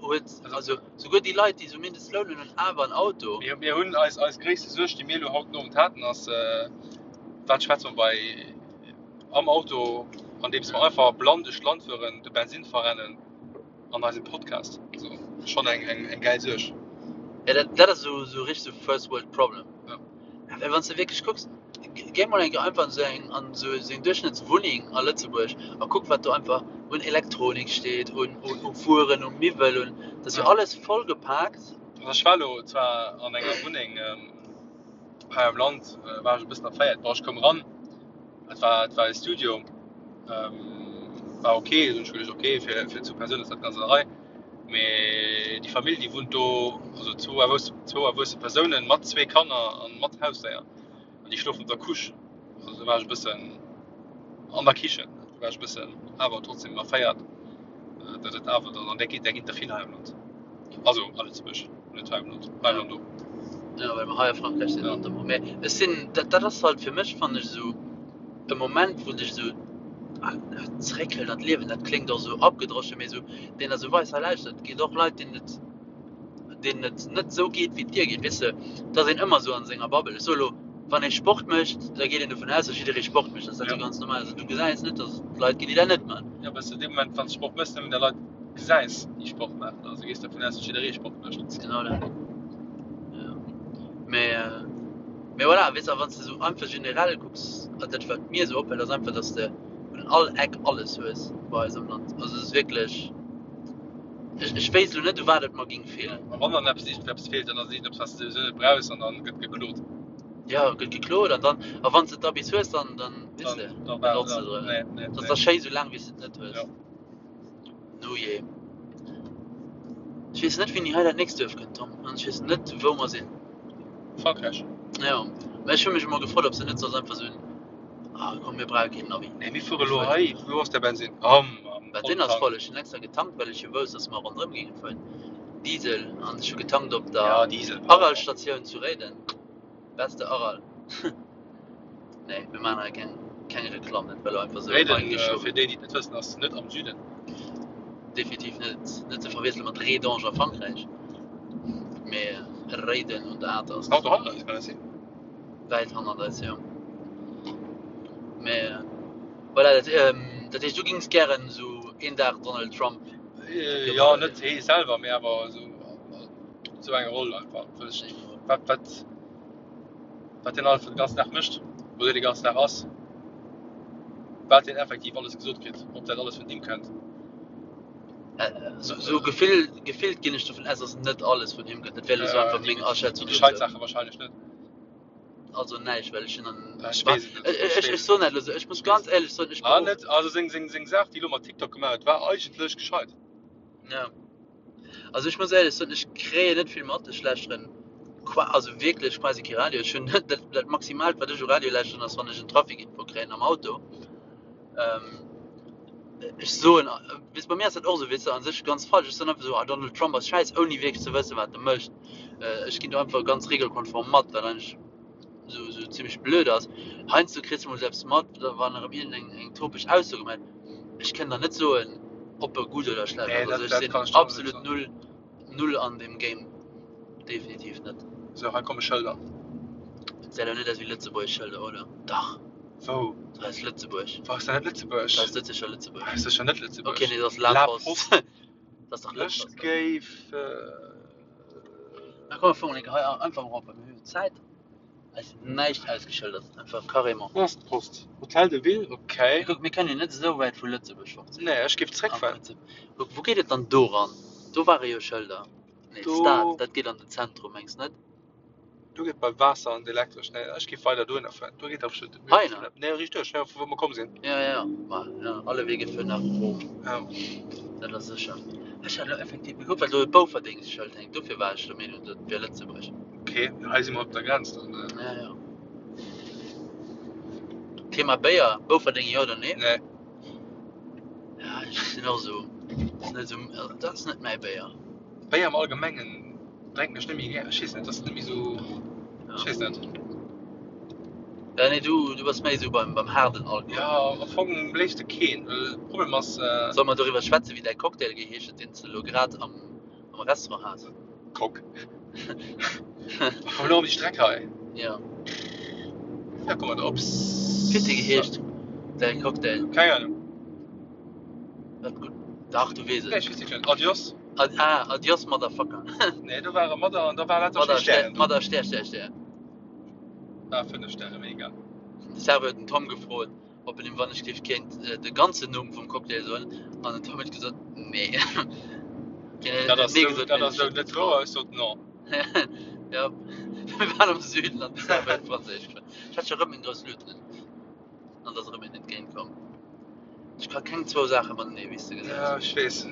huet, also souguer déi Leit, déi esou Mindestloun hunn, hunn awer en Auto. Mir, mir hunn eis, eis gréisste Suerg, déi mir elo haut den Owend haten, ass, wat schwätze mer bei am Auto, andeems mer einfach blann duerch d'Land fueren, de Bensin verrennen an eisem Podcast. Also schonn eng, eng, eng gäil Suerg. Ja, dat, dat ass esou, esou richteg esou First World Problem. Ja. Ja, well wann s de wierklech kucks, géi mol eng Kéier einfach an esou eng, an esou eng Duerchschnëttswunneng a Lëtzebuerg a kuck, wat do einfach un Elektronik steet, un, un, u Wueren, u Miwwel, un, dat ass jo Ja. alles vollgepaakt. Also ech war elo zwar an enger Wunneng hei am Land, war ech e bëssen erféiert. Bon, ech koum eran, et war, et war e Studio, war ok, hunn ech geduecht, ok, fir, fir zwou Persounen ass dat ganz an der Rei. Mee déi Famill, déi wunnt do, also zwou erwuesse, zwou erwuesse Persounen mat zwee Kanner a mat Hausdéier. An déi schlofen op der Couche. Also do war ech e bëssen an der Kichen, do war ech e bëssen awer trotzdem erféiert, datt et awer dann, an där ginn, där ginn der vill hei am Land. Also a Lëtzebuerg, net hei am Land, hei am Land och. Jo, well mer hei a Frankräich sinn, Ja. notamment. Mee ech sinn, dat, dat ass halt fir mech, fannen ech, esou e Moment, wou dech esou zeréckhëlt an d'Liewen. Dat kléngt och esou abgedroschen, mee esou, deen der esou weist, hei lauschter, et ginn och Leit, deenen et, deenen et net esou geet, wéi et dir geet. Weess de, et ass een ëmmer esou an senger Bubble. Ech soe lo, wann ee Sport mécht, da geet een dovun aus, datt jidderee Sport mécht. Dat ass dat Ja. esou ganz normal. Also du gesäis net, datt et Leit ginn, déi dat net maachen. Ja, well s de dee Moment, wann s de Sport méchs, nëmmen der Leit gesäis, déi Sport maachen. Also gees dervun aus, datt jidderee Sport mécht. Dat ass genau dat. Ja. Mee, mee voilà, weess de, a wann s de esou einfach generell kucks, an dat wat mir esou opfält, ass einfach, datt s de un all Eck alles hues bei eis am Land. Also et ass wierklech, ech, ech wéisst elo net, u wat et mer géing feelen. A wann dann eppes iergendeppes feelt, dann ass et iergendeppes, wat s de souwisou net brauchs an dann gëtt geklot. Ja, gëtt geklot an dann, a wann s de et da bis hues, dann, dann, weess de, Dann, dann war, benotz de ja, et. nee, nee, Dat ass nee. da schéi, soulaang wéi s de et net hues. Ja. No jee. Ech weess net wéini hei dat nächst Duerf kënnt, Tom, an ech weess net wou mer sinn. Frankräich. Jo, mä ech hu mech emol gefrot, ob se net soss einfach soen, ah komm mir brauche keen Navi. Nee, mir fuere lo hei, wou ass de Bensin? Am, am Bensin ass Volltank. voll, ech hunn extra getankt, well ech jo wousst, dass mer ronderëm géinge fueren. Diesel, an ech hu getankt op der Ja, Diesel brauch mer. Aral-Statioun zu Réiden. Beste Aral. Nee, mir maachen hei keng, keng Reklamm, dat war elo einfach esou Réiden, eingeschoben. fir déi, déi et net wëssen, ass net am Süden. Definitiv net, net ze verwiessele mat Rédange a Frankräich. Mee Réiden un der Atert. Auto hannert eis, kann dat sinn? Wäit hannert eis, jo. Mee voilà, dat, dat heescht, du gings gären esou een Dag Donald Trump Jo, net hee selwer, mee awer esou, esou eng Roll einfach. Wëll ech, wat, wat. Wat deen alles den ganzen Dag mécht, wou deen de ganzen Dag ass, wat deen effektiv alles gesot kritt, ob dat alles vun him kënnt. Sou gefill, gefillt ginn ech dovun aus, dass net alles vun him kënnt. Dat wär elo sou einfach meng Aschätzung Déi gescheit Saache wahrscheinlech net. Also näischt, well ech hunn an. Ech weess et net. Ech, ech, ech soen dat elo sou. Ech muss ganz éierlech soen, ech. Ah net, also seng, seng, seng Saach, déi elo mat TikTok gemaach huet, war eigentlech gescheit. Ja. Also ech muss éierlech soen, ech kréien net vill mat. Ech lauschteren qua also wierklech quasi kee Radio. Ech hunn dat, dat Maximaalt, wat ech u Radio lauschteren, ass wann ech en Trafikinfo kréien am Auto. Ähm, ech soen, weess, bei mir ass dat och esou, weess de, a sech ganz falsch. Ech soen einfach esou, ah Donald Trump ass schäiss, ouni wierklech ze wëssen, wat e mécht. Ech ginn do einfach ganz regelkonform mat, wat eigentlech esou, esou zimmlech blöd ass. Heiansdo kriss de mol esou eppes mat, wann erëm iergendeng eng topeg Ausso gemaach gëtt. Ech kënnt der net soen op e gutt oder schlecht Nee, ass. dat, Also ech dat sinn kann ech der och net absolut soen. null, null an deem Game. Definitiv net. Sou, hei komme Schëlder. Et gesäit awer net aus wéi lëtzebuergesch Schëlder, oder? Dach, Wou? dat ass Lëtzebuerg. Wou ass dat net Lëtzebuerg? Dat ass net sécher Lëtzebuerg. Dat ass sécher net Lëtzebuerg. Okay, nee, dat ass La La Poste. Poste. Dat ass dach Ech Lëtzebuerg. géif. Na komm, mir fueren eng Kéier hei einfach erop, well mir hu jo Zäit. Ass näischt ausgeschëldert, einfach carrément. Wou ass d'Post? Hotel de Ville, ok. Mee kuck, mir kënnen jo net esou wäit vu Lëtzebuerg fort sinn. Nee, ech géif Am zréckfueren. Prinzip. Kuck, wou geet et dann do ran? Do ware jo Schëlder. Nee, Do. Stad, dat geet an den Zentrum, mengs net? Do geet bei Waasser an d'Elektresch. Nee, ech géif weider dohinner fueren. Do geet der bestimmt. Heihinner? Nee, riicht duerch, vu wou mer komm sinn. Ja, ja, ma ja, alle Wege führen nach Rom. Ja. Dat ass sécher. Ech hat elo effektiv gekuckt, well do e Bouferdéngsschëld hänkt, dofir war ech der Meenung, dat wier Lëtzebuerg. Ok, hei si mer op der Grenz dann. Ja, ja. Thema Béier, Bouferdeng jo oder nee? Nee. Ja, ech sinn och esou, ass net esou, dat ass net mäi Béier. Béier am Allgemengen drénken ech net méi gär. Ech weess net, ass net méi esou, ech weess net. Ja, nee, du, du bass méi esou beim, beim haarden Alkohol. Ja, am Fong am léifste keen, well de Problem ass. Solle mer doriwwer schwätzen, wéi däi Cocktail geheescht huet, deen s de elo grad am, am Restaurant has? Cock. Komm elo op déi Streck hei. Ja. Ja, komm mat op. Wéi huet dee geheescht, däi Cocktail? Keng Ahnung. Wat gutt. Dach, du weess et. Nee, ech weess wierklech net. Adios. Ad, ah, Adios, Motherfucker. Nee, do war e Madder an da war lauter Madder, schéi Stären do. Madder, Stär, Stär, Stär. Ah, 5 Stäre, mega. De Serveur huet den Tom gefrot, ob en him wann ech géif kéint de ganzen Numm vum Cocktail soen, an den Tom huet gesot, nee. Hien Dat huet ass nee sou, gesot, dat mee ass sech sou net net getraut. wouer, ech sot non. Ja, mir waren am Süden an de Serveur huet Franséisch geschwat. Ech hat scho rëm meng grouss Lut un an et ass erëm een entgéint komm. Ech ka keng zwou Saache matenee, wéi s de Ja, gesäis. ech weess.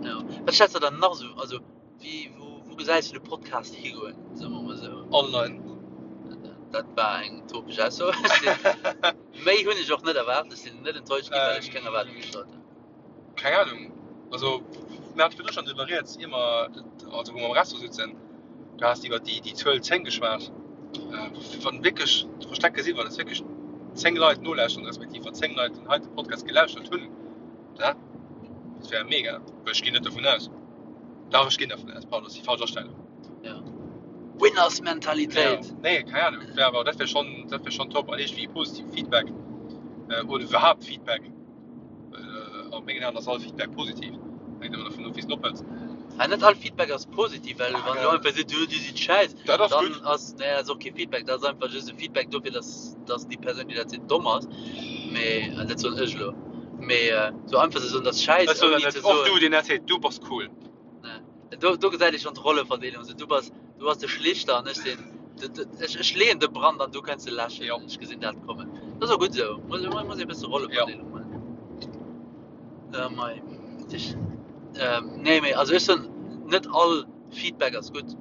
Jo. Wat stells de der nach sou, also Wéi, wou, wou gesäis du de Podcast higoen, soe mer mol esou? Online. Dat war eng topesch Ausso. Ech sinn, méi hunn ech och net erwaart. Ech sinn net enttäuscht ginn, well ech keng Erwaardung gestallt hunn. Keng Ahnung. Also, mir hate virdru schonn driwwer rieds, ier mer, also wou mer am Restaurant souzen, du has iwwer déi, déi Zuel 10 geschwat. Wann wierklech verstecke sinn, wann et wierklech 10 Leit nolauschteren, respektiv wann 10 Leit den heite Podcast gelauschtert hunn, dat wär mega. Well ech ginn net dovun aus. Dach, ech ginn dervun aus. Pardon, ass déi falsch Astellung. Ja. Winners-Mentalitéit! Ja, nee, keng Ahnung. Wär awer, dat wär schonn, dat wär schonn top. An iergendwéi positiv Feedback oder iwwerhaapt Feedback. Well a mengen Aen ass all Feedback positiv. Hänkt ëmmer dervun of, wéi s de en ophëls. Ah, net all Feedback ass positiv, well wann du einfach sees, du, dir sidd schäiss, Dat ass dann gutt. ass, nee, dat ass och kee Feedback, dat ass einfach just e Feedback dofir, dass, dass déi Persoun, déi dat seet, domm ass. Mee, dat soen ech elo. Mee sou einfach ze soen, dat ass schäiss, Ech soen ouni dat ze net. Och du, soen. deen dat seet, du bass cool. Nee. Do, do gesäit ee schonn d'Rolleverdeelung. Sou, du bass, du bass de Schlichter an ech sinn, de, de, ech, ech leeën de Brand an du kënns e läschen. Jo. Ech gesinn dat kommen. Dat ass och gutt esou. Muss, muss ee bësse Jo. Rolleverdeelung maachen. Äh, mei. Ech, ähm, nee, mee also ech soen, net all Feedback ass gutt.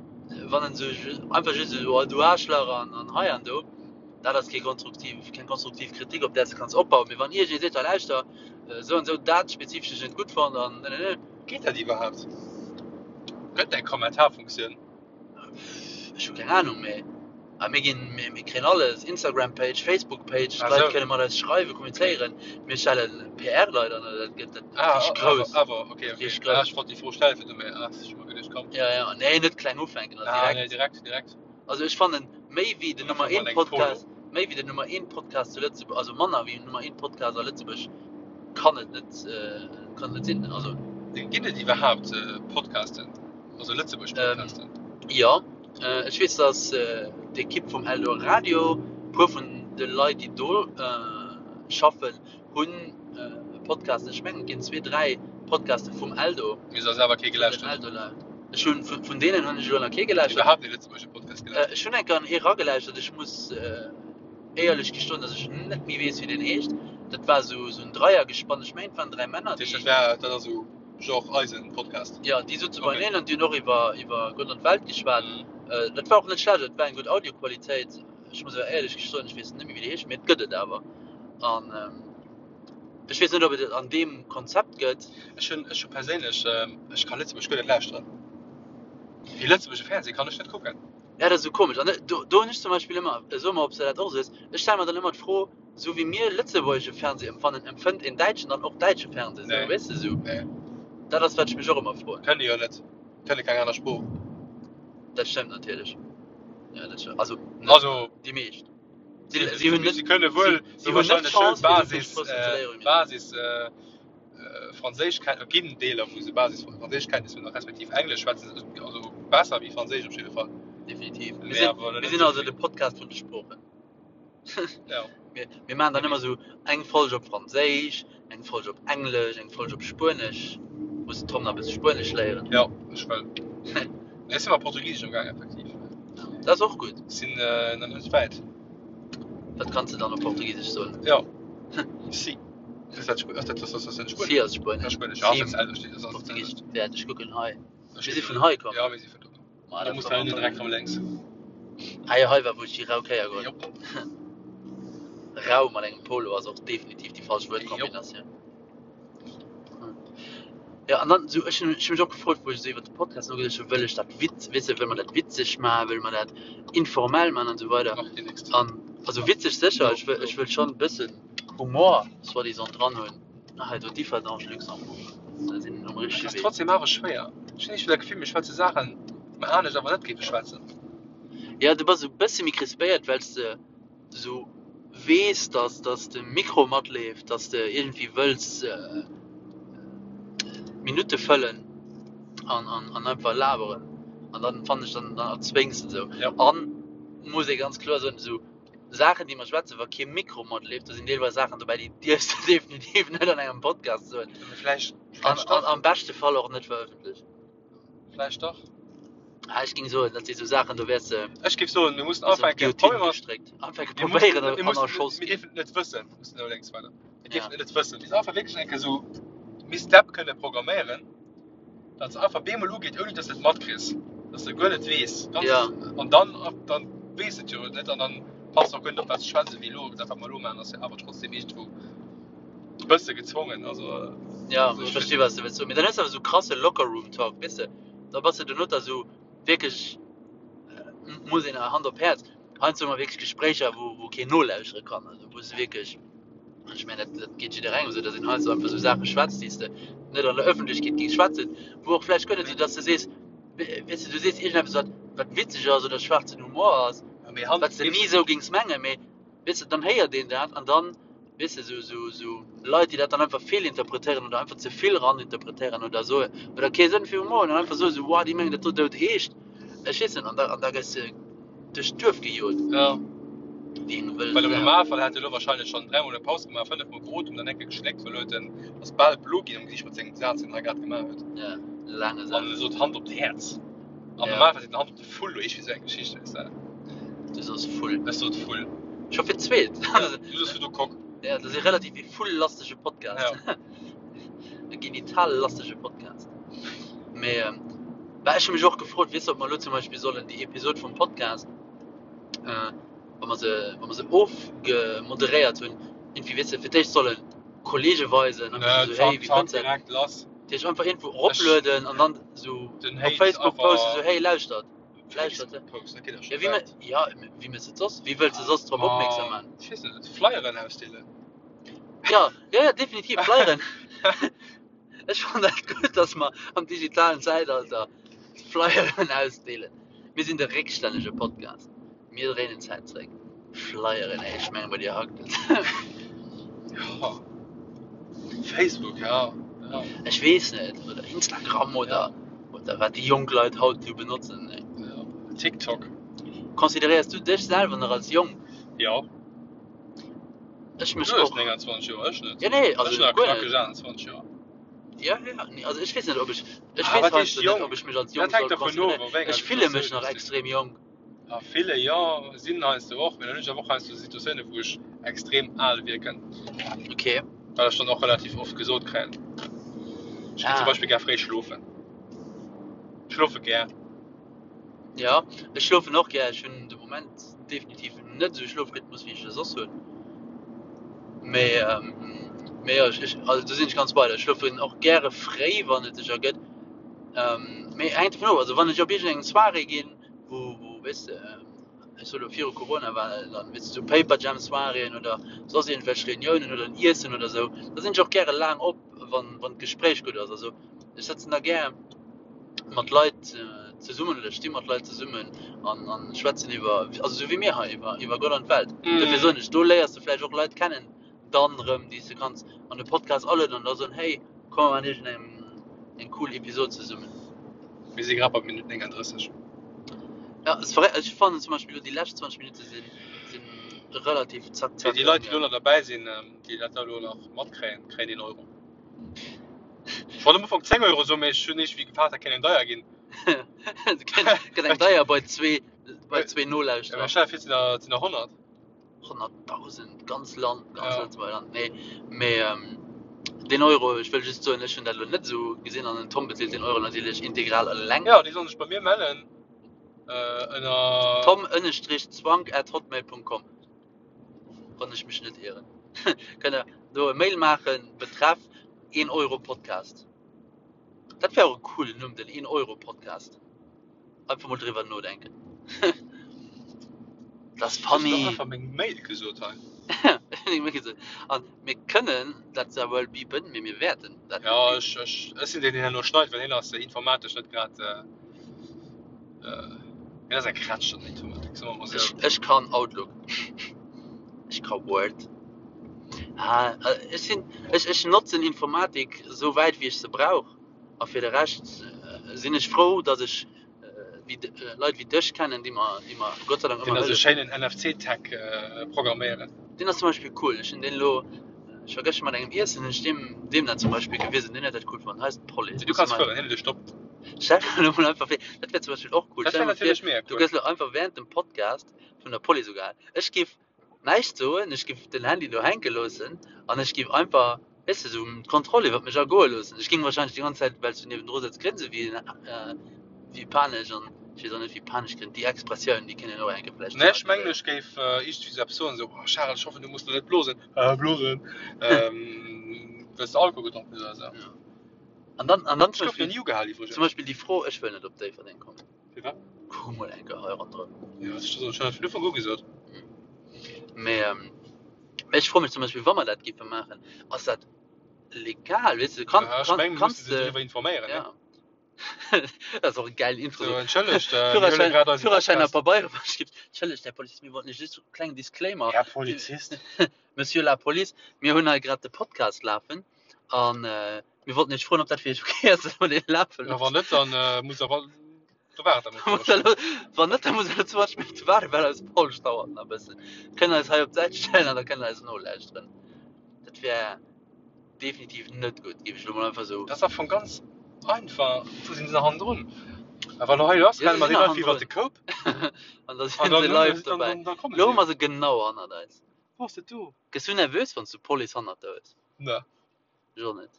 Wann en sou einfach just esou, oh du Aarschlach an, an hei an do. Dat ass kee konstruktiv, keng konstruktiv Kritik, op där s de kanns opbauen. Mee wann iergendee seet, hei lauschter, esou an esou, dat spezifesch hunn ech net gutt fonnt an ne, ne, ne. Geet dat iwwerhaapt? Gëtt eng Kommentarfunktioun? Ech hu keng Anung, mee a mir ginn, mir, mir kréien alles, Instagram-Page, Facebook-Page, Ah d'Leit sou. kënne mat eis schreiwen, kommunizéieren. Mir stelle PR-Leit an, dat gëtt dat Ah, richteg grouss. awer, awer, okay, okay. Richteg Ah, grouss. ech wollt déi Fro stellen, fir du, mee ah, ech hu mer geduecht, komm. Ja, ja, nee, net kleng ufänken, also Ah, nee, direkt. direkt, direkt. Also ech fannen méi wéi den Nummer Einfach 1 mal eng Polo. Podcast, méi wéi den Nummer 1 Podcast zu Lëtzebuerg, also manner wéi den Nummer 1 Podcast a Lëtzebuerg kann et net, kann et net sinn. Also. Ginn et iwwerhaapt Podcasten, also Lëtzebuerg Podcasten? Jo, ech weess dass d'Ekipp vum Eldoradio, puer vun de Leit déi do schaffen, hunn e Podcast. Ech mengen et ginn zwee, dräi Podcaste vum Eldo. Mee se ass awer kee gelauschtert. Ech hunn vun deenen hunn ech elo nach kee gelauschtert. Iwwerhaapt ee lëtzebuergesche Podcast gelauschtert? Ech hunn eng Kéier an ee ragelauschtert. Ech muss éierlech gestoen, datt ech net méi weess wéi deen heescht. Dat war esou esou en Dreiergespann. Ech mengen et waren dräi Männer, Dat heescht, déi. dat war dat ass esou genre eisen Podcast? Jo, déi souze Okay. beieneen an déi hunn och iwwer iwwer Gott an d'Welt geschwat. Mhm. Dat war och net schlecht, et war eng gutt Audioqualitéit. Ech muss awer éierlech gestoen, ech weess net méi wéi déi heescht, mee et gëtt et awer. An ech weess net, ob et et an deem Konzept gëtt. Ech hunn, ech hu perséinlech, ech ka Lëtzebuerg guer net lauschteren. Dee lëtzebuergesche Fernseh kann ech net kucken. Ja, dat ass esou komesch. An do, do hunn ech zum Beispill ëmmer, so mer, ob s de dat och esou hues, ech stelle mer dann ëmmer d'Fro, esou wéi mir lëtzebuergesche Fernseh empfannen, empfënnt een Däitschen dann och däitsche Fernseh esou, Nee. weess de esou? Nee. Dat ass, wat ech mech och ëmmer froen. Kënnen déi jo net. Kënne keng aner Sprooch. Dat stëmmt natierlech. Ja, dat stëmmt. Also, net Also, déi meescht. Si, si hunn net, si kënne wuel si, si hunn net wahrscheinlech d'Chance, fir esou vill Basis, Sproochen ze léieren wéi mir. Basis Franséischkenntnisser, ginn Deeler wou se Basis Franséischkenntnisser hunn, respektiv Englesch schwätzen se also besser wéi Franséisch op jidde Fall. Definitiv. Mir Mee sinn, awer mir net sinn esou also vill. de Podcast vun de Sproochen. Ja. Mir, mir maachen dann ëmmer esou eng Folg op Franséisch, eng Folg op Englesch, eng Folg op Spuenesch. Muss den Tom nach e bësse Spuenesch léieren. Ja, ech wëll. Nee, ech si mat Portugisesch am Gaang, effektiv. Dat ass och gutt. Sinn nach net wäit. Dat kanns de dann op Portugisesch soen. Ja. Si. Ass dat Spuenesch? Ass dat, ass dat Spuenesch? Si ass Spuenesch. Ja, Spuenesch. Ja, ass dat selwecht. Ass dat Portugisesch. Wäert ech kucken hei. Mir si vun hei komm. Ja, mir si vun do komm. Ma, Da muss da hinne direkt rëm lénks. Ah jo, hei war wou ech déi rau Kéier geholl. Jop. Rau mat engem Polo ass och definitiv déi falsch Wuertkombinatioun. Ja, an dann sou, ech hunn ech hunn mech och gefrot, wou ech esou iwwert de Podcast nogeduecht hunn, wëll ech dat witz, weess de, wëll mer dat witzeg maachen, wëlle mer dat informell maachen an esou weider. Macht dir nächst. An also witzeg sécher, No, ech wëll no. ech wëll schonn e bëssen Humor soi-disant dran hunn. Ah, hei do Differdange, Luxembourg, da sinn um Et richtege ass Wee. trotzdem awer schwéier. Ech hunn iergendwéi dat Gefill, mir schwätze Saachen, déi mer anescht awer net géife schwätzen. Ja, du bass esou e bësse méi crispéiert, well s de esou weess, dass, dass de Mikro matleeft, dass de iergendwéi wëlls d'Minutte fëllen an, an, an einfach laberen. An dann fannen ech, dann, dann erzwéngs de esou. Ja. An muss ee ganz kloer soen, esou Saachen, déi mer schwätzen, wa kee Mikro matleeft, do sinn deelweis Saachen dobäi, déi dierfs de definitiv net an engem Podcast soen. Mee vläicht, An, vläicht an dach. am beschte Fall och net verëffentlechen. Vläicht dach. Ah, ech géing soen, dat si sou Saachen, do wäers de Ech géif soen, mir mussen bis an ufänken, d'Guillotine Probier mer, gestréckt. Ufänke mir mussen, probéieren mir an mussen, erschoss mir ginn. dierfen et net wëssen, mir mussen elo lénks weider. Mir Ja. dierfen et net wëssen. Mir einfach wierklech eng Kéier esou Miss Depp kënne programméieren, datt se einfach bemol ugeet, ouni datt s de et matkriss, datt s de guer net weess. Ganz, Ja. an dann, dann weess de et jo net an dann passt de och guer net op, wat s de schwätz, wéi elo. Dat, wat mer elo maachen, ass jo awer trotzdem iergendwou e bësse gezwongen. Also, Ja, also ech ech versti wat s de wëlls soen. Mee dann hues de awer esou krasse Locker-Room-Talk, weess de. Da bass de dono da sou wierklech, muss een Hand op Häerz, heiansdo hu mer wierklech Gespréicher, wou, wou keen nolauschtere kann, also wou s de wierklech, an ech mengen, dat, dat geet jidderengem esou, datt een heiansdo einfach esou Saache schwätzt, déi s de net an der Ëffentlechkeet géings schwätzen, wou och vläicht guer net esou, datt s de sees, weess de, du sees iergendeppes, wat, wat witzeg ass oder schwaarzen Humor ass, Mee Hand, wat s de ni esou géings mengen, mee weess de, dann héiert een dat an dann, weess de, sou, sou, sou Leit, déi dat dann einfach feelinterpretéieren oder einfach ze vill raninterpretéieren oder soen, oder kee Sënn fir Humor hunn an einfach soen, sou, wow, déi mengen dat do dout eescht. Ech weess net, an da, an da gëss de duerch d'Duerf gejot. Ja. Wéi eng wëll Well am Sau. Normalfall hätt e lo wahrscheinlech schonn dräimol eng Paus gemaach, fënnefmol geotemt an eng Kéier geschléckt, well huet en ass bal blo ginn am Gesiicht mat sengem Saz, deen en hei grad gemaach huet. Ja, laange An Saz. e sot Hand op d'Häerz. Am Ja. Normalfall seet en Hand op de Vull oder iergendwéi sou eng Geschicht, weess de. Du sos Vull. Ech sot Vull. Scho fir d'zweet. Ja, du sos fir du Kock. Ja, dat ass e relativ e vulllastege Podcast. Ja. E genitallastege Podcast. Mee ähm, bah, ech hu mech och gefrot, weess de, ob mer elo zum Beispill sollen déi Episod vum Podcast, äh, wa mer se, wa mer se ofgemoderéiert hunn, irgendwie, weess de, fir d'éischt solle Kollege weisen, an Nö, so, zack, hey, wéi zack, fënns de dat? direkt lass. Dat heescht einfach iergendwou eroplueden an dann sou Den op Hate Facebook einfach posten, sou, hey, lauschtert. Lauschtert, Facebook posten, dat geet jo ja, scho wéi wäit. ja, wéi méchs de et soss? Wéi wëlls de soss drop opmierksam Ma, maachen? ech weess net, Flyeren ausdeelen. Ja, ja, ja, definitiv, Flyeren. Ech fannen dat gutt, dass mer am digitalen Zäitalter Flyeren ausdeelen. Mir sinn de réckstännege Podcast. Mir dréinen d'Zäit zréck. Flyeren, ey, ech mengen, bei dir hackt et. Ja, Facebook, ja, ja. Ech weess net, oder Instagram oder, Ja. oder wat déi jonk Leit haut esou benotzen. Ey. Ja. TikTok. Consideréiers du dech selwer nach als jonk? Ja. Ech mech Du hues och. 29 Joer, ech net. Ja, nee, also Ech hunn nach guer net. knackeg 28 Joer. Ja, ja, nee, also ech weess net, ob ech, ech Ah, weess wat heescht heiansdo net, jonk? ob ech mech als Dat jonk hänkt soll dervun of, consideréieren. a wéi enger Ech fille mech Situatioun nach du sinn. extrem jonk. A ville, jo, sinn heiansdo och, mee dann hunn ech awer och heiansdo Situatiounen, wou ech extrem al wierken. Okay. Wat ech dann och relativ oft gesot kréien. Ech ginn zum Ah. Beispill gär fréi schlofen. Ech schlofe gär. Ja, ech schlofen och gär. Ech hunn de Moment definitiv net esou e Schlofrhythmus, wéi ech e soss hunn. Mee, mee jo, ech, also do sinn ech ganz bei der. Ech schlofen och gäre fréi, wann et sech ergëtt. Mee hänkt dovun of, also wann ech op iergendeng Soirée ginn, wou, wou, weess de, ech soe lo viru Corona war dann, weess de, sou Paperjam Soiréeën oder soss iergendwelch Reuniounen oder en Iessen oder sou, da sinn ech och gäre laang op, wann, wann d'Gespréich gutt ass. Also ech sëtzen da gär mat Leit zesummen oder ech sti mat Leit zesummen an, an schwätzen iwwer, also sou wéi mir hei, iwwer, iwwer Gott an d'Welt. Dofir soen ech, do léiers de vläicht och Leit kennen, dann erëm, déi s de kanns an de Podcast alueden an da soen, hey, komm mer maachen iergendeng eng cool Episod zesummen. Mir si grad bei Minutt 39. Ja, es verré ech fannen zum Beispill elo déi lescht 20 Minutte sinn, sinn relativ zack, Fir zack déi Leit, déi elo ëmgaangen. nach derbäi sinn, déi dat elo nach matkréien, kréien een Euro. Ech wollt am Ufank 10 Euro soen, mee ech hunn iergendwéi gefaart, dat kéint eng deier ginn. Et gëtt eng deier bei zwee, bei zwee Ja, mee Nolauschterer. stell der vir, et sinn der, et sinn der 100. 100.000, ganz Land, ganz Ja. Lëtzebuerger Land. Nee, mee ähm, den Euro, ech wëll just soen, ech hunn dat elo net esou gesinn an den Tom bezilt den Euro natierlech integral eleng. Ja, déi sollen sech bei mir mellen äh, ënner. Tom ënnestrich zwank at hotmail punkt com, wann ech mech net ieren. Kënnt der do e Mail maachen, betreff 1 Euro Podcast. Dat wär och e coolen Numm, den 1 Euro Podcast. Einfach mol driwwer nodenken. Dat ass Ech hunn funny. och einfach meng Mail gesot hei. Meng Mail gesot. An mir kënnen dat zwar wuel bipen, mee mir wäerten dat net Ja, bipen. ech, ech, ech sinn deen, deen herno schneit, well hien ass informatesch net grad, äh, hien ass eng Krätsch an der Informatik, soe mer mol Ech, sou. ech kann Outlook. Ech ka Word. Ah, ech sinn, ech, ech notzen Informatik esou wäit wéi ech se brauch. A fir de Rescht sinn ech frou, datt ech wéi Leit wéi dech kennen, déi mer, déi mer Gott sei Dank Deen ëmmer ass e hëllefen. schéinen NFC-Tag programméieren. Deen ass zum Beispill cool. Ech hunn deen elo, ech war gëschter mat engem iessen, hunn ech deem, deem dat zum Beispill gewisen. Deen huet dat cool fonnt. Hei ass d'Police. Du Muss kanns mei fueren, hien huet e Stopp. Stell der elo mol einfach vir, dat wär zum Beispill och cool. Dat Stell wär der mol vir, natierlech mega du cool. gëss elo einfach während dem Podcast vun der Police ugehal. Ech giff näischt soen, ech giff den Handy do hänke loossen an ech giff einfach, weess de, sou d'Kontroll iwwert mech ergoe loossen. Ech ging wahrscheinlech déi ganz Zäit, well s du niewendru sëtz, grinse wéi wéi panesch an ech weess och net wéi panesch grinnt, déi Expressioun, déi kéint een och eng Kéier vläicht Nee, ech mengen thematiséieren. ech géif iergendwéi sou eppes soen, sou, oh Charel, ech hoffen du muss lo net blosen, äh blosen, well s de Alkohol gedronk hues oder sou. Ja. An dann, an dann Ech zum gouf nach Beispill, ni ugehal zum iwwregens. Beispill déi Fro, ech wëll net op Déifferdeng kommen. Firwat? Kuck mol eng Kéier hei ronderëm. Jo, ech hunn dat vun Ufank u gesot. Mee ech froe mech zum Beispill, wa mer dat géife maachen, ass dat legal? Weess de, kann, Ja, ech kann, mengen, mir kanns musse se de. driwwer informéieren, ne? Ja. Dat ass och e gäilen Intro. So, Sou, entschëllegt, mir huele Führerschäin, grad eise Führerschäin a Podcast. Pabeiere verschrift. Entschëllegt, Här Polizist, mir wollten lech just e klengen Disclaimer. Här Polizist. Monsieur la Police, mir hunn hei grad de Podcast lafen an Mir wollten iech froen, ob dat fir iech ok ass, dass mer dee lafe Ja, wann loossen. net, dann äh, muss awer da waart der Muss der lo, wann net, da muss der lo 20 Minutte waarden, well eis Paulsch dauert nach e bëssen. Kënnt eis hei op d'Säit stellen an da kënnt der eis nolauschteren. Dat wär definitiv net gutt, géif ech lo mol einfach sou. Dat ass am Fong ganz einfach. Wou sinn se nach hannendrun? A wann hei ass, Jo, renne se mer sinn deenen nach einfach iwwert hannendrun. de Koup An da an sinn dann se hunn live se, dann, dobäi. dann, dann komme Lo se hu jo. mer se genau hannert eis. Wou ass dat do? Gëss du nervös, wann s du d'Police hannert der hues? Ne. Ech och net.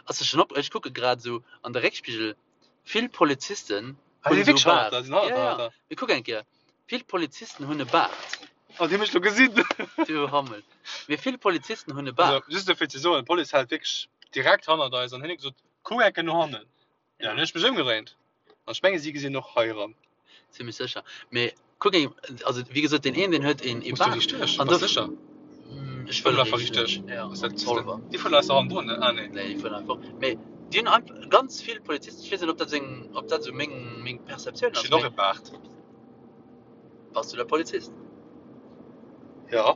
Ass der schon op, ech kucke grad esou an de Réckspigel, vill Polizisten Ah, hunn déi esou wierklech hannert Baart. der, sinn hannert Ja, der, ja, Alter. mee kuck eng Kéier, vill Polizisten hunn e Baart. Oh, déi hunn mech lo gesinn. Du Hammel. Mee vill Polizisten hunn e Also, Baart. just dofir ze soen, d'Police hält wierklech direkt hannert eis an hien huet gesot, kuck eng Kéier no hannen. Ja, Ja. dann hunn ech mech ëmgedréint. An ech menge si gesinn och hei eran. Zimmlech sécher. Mee kuck eng, also wéi gesot, deen een, deen huet een ee Muss du Baart. riicht duerch? An Bass do, sécher? ech Fuer wëll einfach riicht riicht duerch. duerch. Ja, Ass op dat, Zolwer. déi fueren eis nach hannendrun, ne? Ah, nee. Nee, déi fueren einfach. Mee déi hunn einfach ganz vill Polizisten, ech weess net, ob dat seng, ob dat esou meng, meng Perceptioun Ech ass, hunn och mee e Baart. bass du da Polizist? Ja.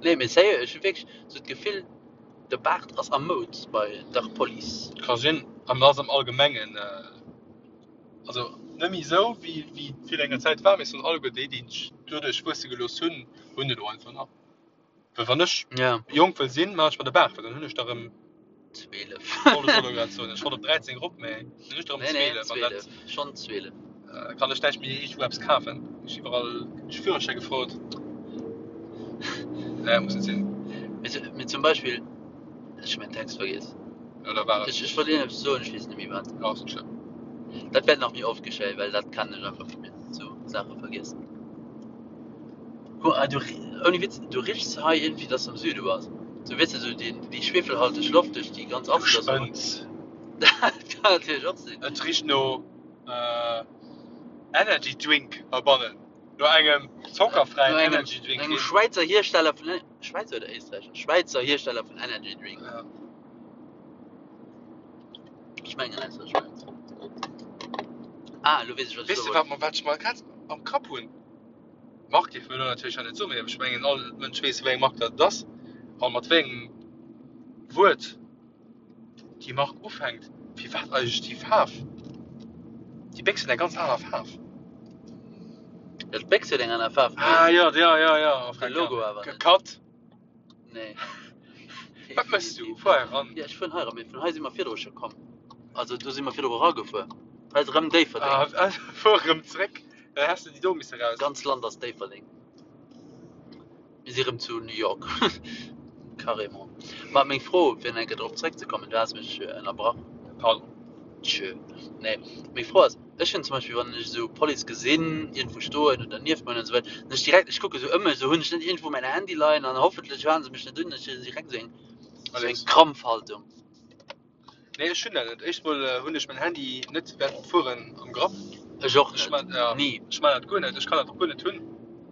Nee, mee sérieux, ech hu wierklech esou d'Gefill, De Baart ass a Moud bei der Police. Ka sinn, an ass am Allgemengen, also net méi esou wéi wéi et virun enger Zäit war, mee soen alleguer déi, déi sech doduerch wuesse gelooss hunn, hunn et elo einfach nach. Well wann ech jonk wëll sinn, maachen ech mer de Baart, well dann hunn ech der erëm, 12. Wollt ech och elo grad soen, ech wollt op 13 erop, mee dann hunn ech der erëm 12 an dat. Schonn 12. Kann ech näischt méi iergendwou eppes kafen? Ech iwwerall de Führerschäi gefrot. Nee, muss net sinn. Mee zum Beispill, ech hu mäin Text vergiess. Jo, da war et. Ech wollt iergendeppes soen, ech weess net méi wat. Jo, ass net schlëmm. Dat wäert nach méi oft geschéien, well dat kennen ech einfach vu mir, sou Saache vergiessen. Guck mal, du, ouni Witz, du richs hei iergendwéi, dass de am Süde bass. Sou, weess de, sou déi, déi schwefelhalteg Loft duerch déi ganz Du Apfel. spënns. Dat kann natierlech och sinn. Et richt no Energy Drink heibannen. No engem zockerfräien No engem, Energy Drink. no engem Schwäizer Hiersteller vun, Schwäizer oder Éisträicher? Schwäizer Hiersteller vun Energy Drink. Ja. Ech mengen aus der Schwäiz. Ah, elo weess ech, wat ech Weess soe de, wollt. wat mer, wat ech mer grad am Kapp hunn? D'Mark dierfe mir elo natierlech hei net soen, mee ech mengen, all Mënsch weess, wéi eng Mark dat et ass a mat wéi engem Wuert déi Mark ufänkt. Firwat eigentlech déi Faarf? Déi Béchs huet eng ganz aner Faarf. Jo, d'Béchs huet eng aner Faarf, mee Ah jo, jo, jo, jo, de Logo awer net. Cut! Nee. Wat méchs du? Fuer hei eran. Jo, ech fueren hei eran, mee vun hei si mer virdru scho komm. Also do si mer virdru eragefuer. Hei ass erëm Déifferdeng. Ah, fuer erëm zréck, dann häss de déi do misse raus. D'ganz Land ass Déifferdeng. Mir si rëm zu New York. Carrément. Ma meng Fro, fir nach eng Kéier drop zréckzekommen, du has mech ënnerbrach. Pardon. Tschö. Nee, meng Fro ass, ech hunn zum Beispill, wann ech esou Police gesinn, iergendwou stoen oder nieft mer hunn an esou weider, dann ech direkt, ech kucke sou ëm mech, esou, hunn ech net iergendwou mäin Handy leien an hoffentlech hale se mech net un, ech hunn direkt esou eng, esou eng Alex. Krampfhaltung. Nee, ech hunn dat net. Éischt mol hunn ech mäin Handy net während dem Fueren am Grapp. Ech och Ech net. man, ja, Ni. ech man dat guer net. Ech kann dat och guer net hunn.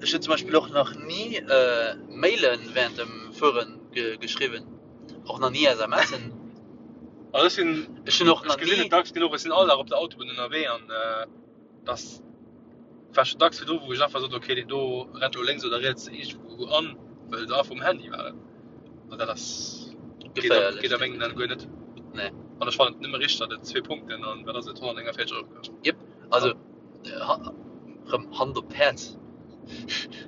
Ech hunn zum Beispill och nach ni Mailen während dem Fueren geschriwwen. Och nach ni SMSen. Also ech sinn, Ech hunn och ech nach gesinn ni. et dacks genuch, ech sinn all Dag op der Autobunn ënnerwee an dass war schon dacks virdru wou ech einfach sot, okay deen do rennt elo lénks oder riets iergendwou an, well se einfach um Handy waren. An dat ass geet a Geféierlech, geet a mengen Aen guer net. Nee. An ech fannen et nëmme richteg, datt et zwee Punkten an wat ass et 149 Euro kascht. Jep, also rëm Hand op d'Häerz,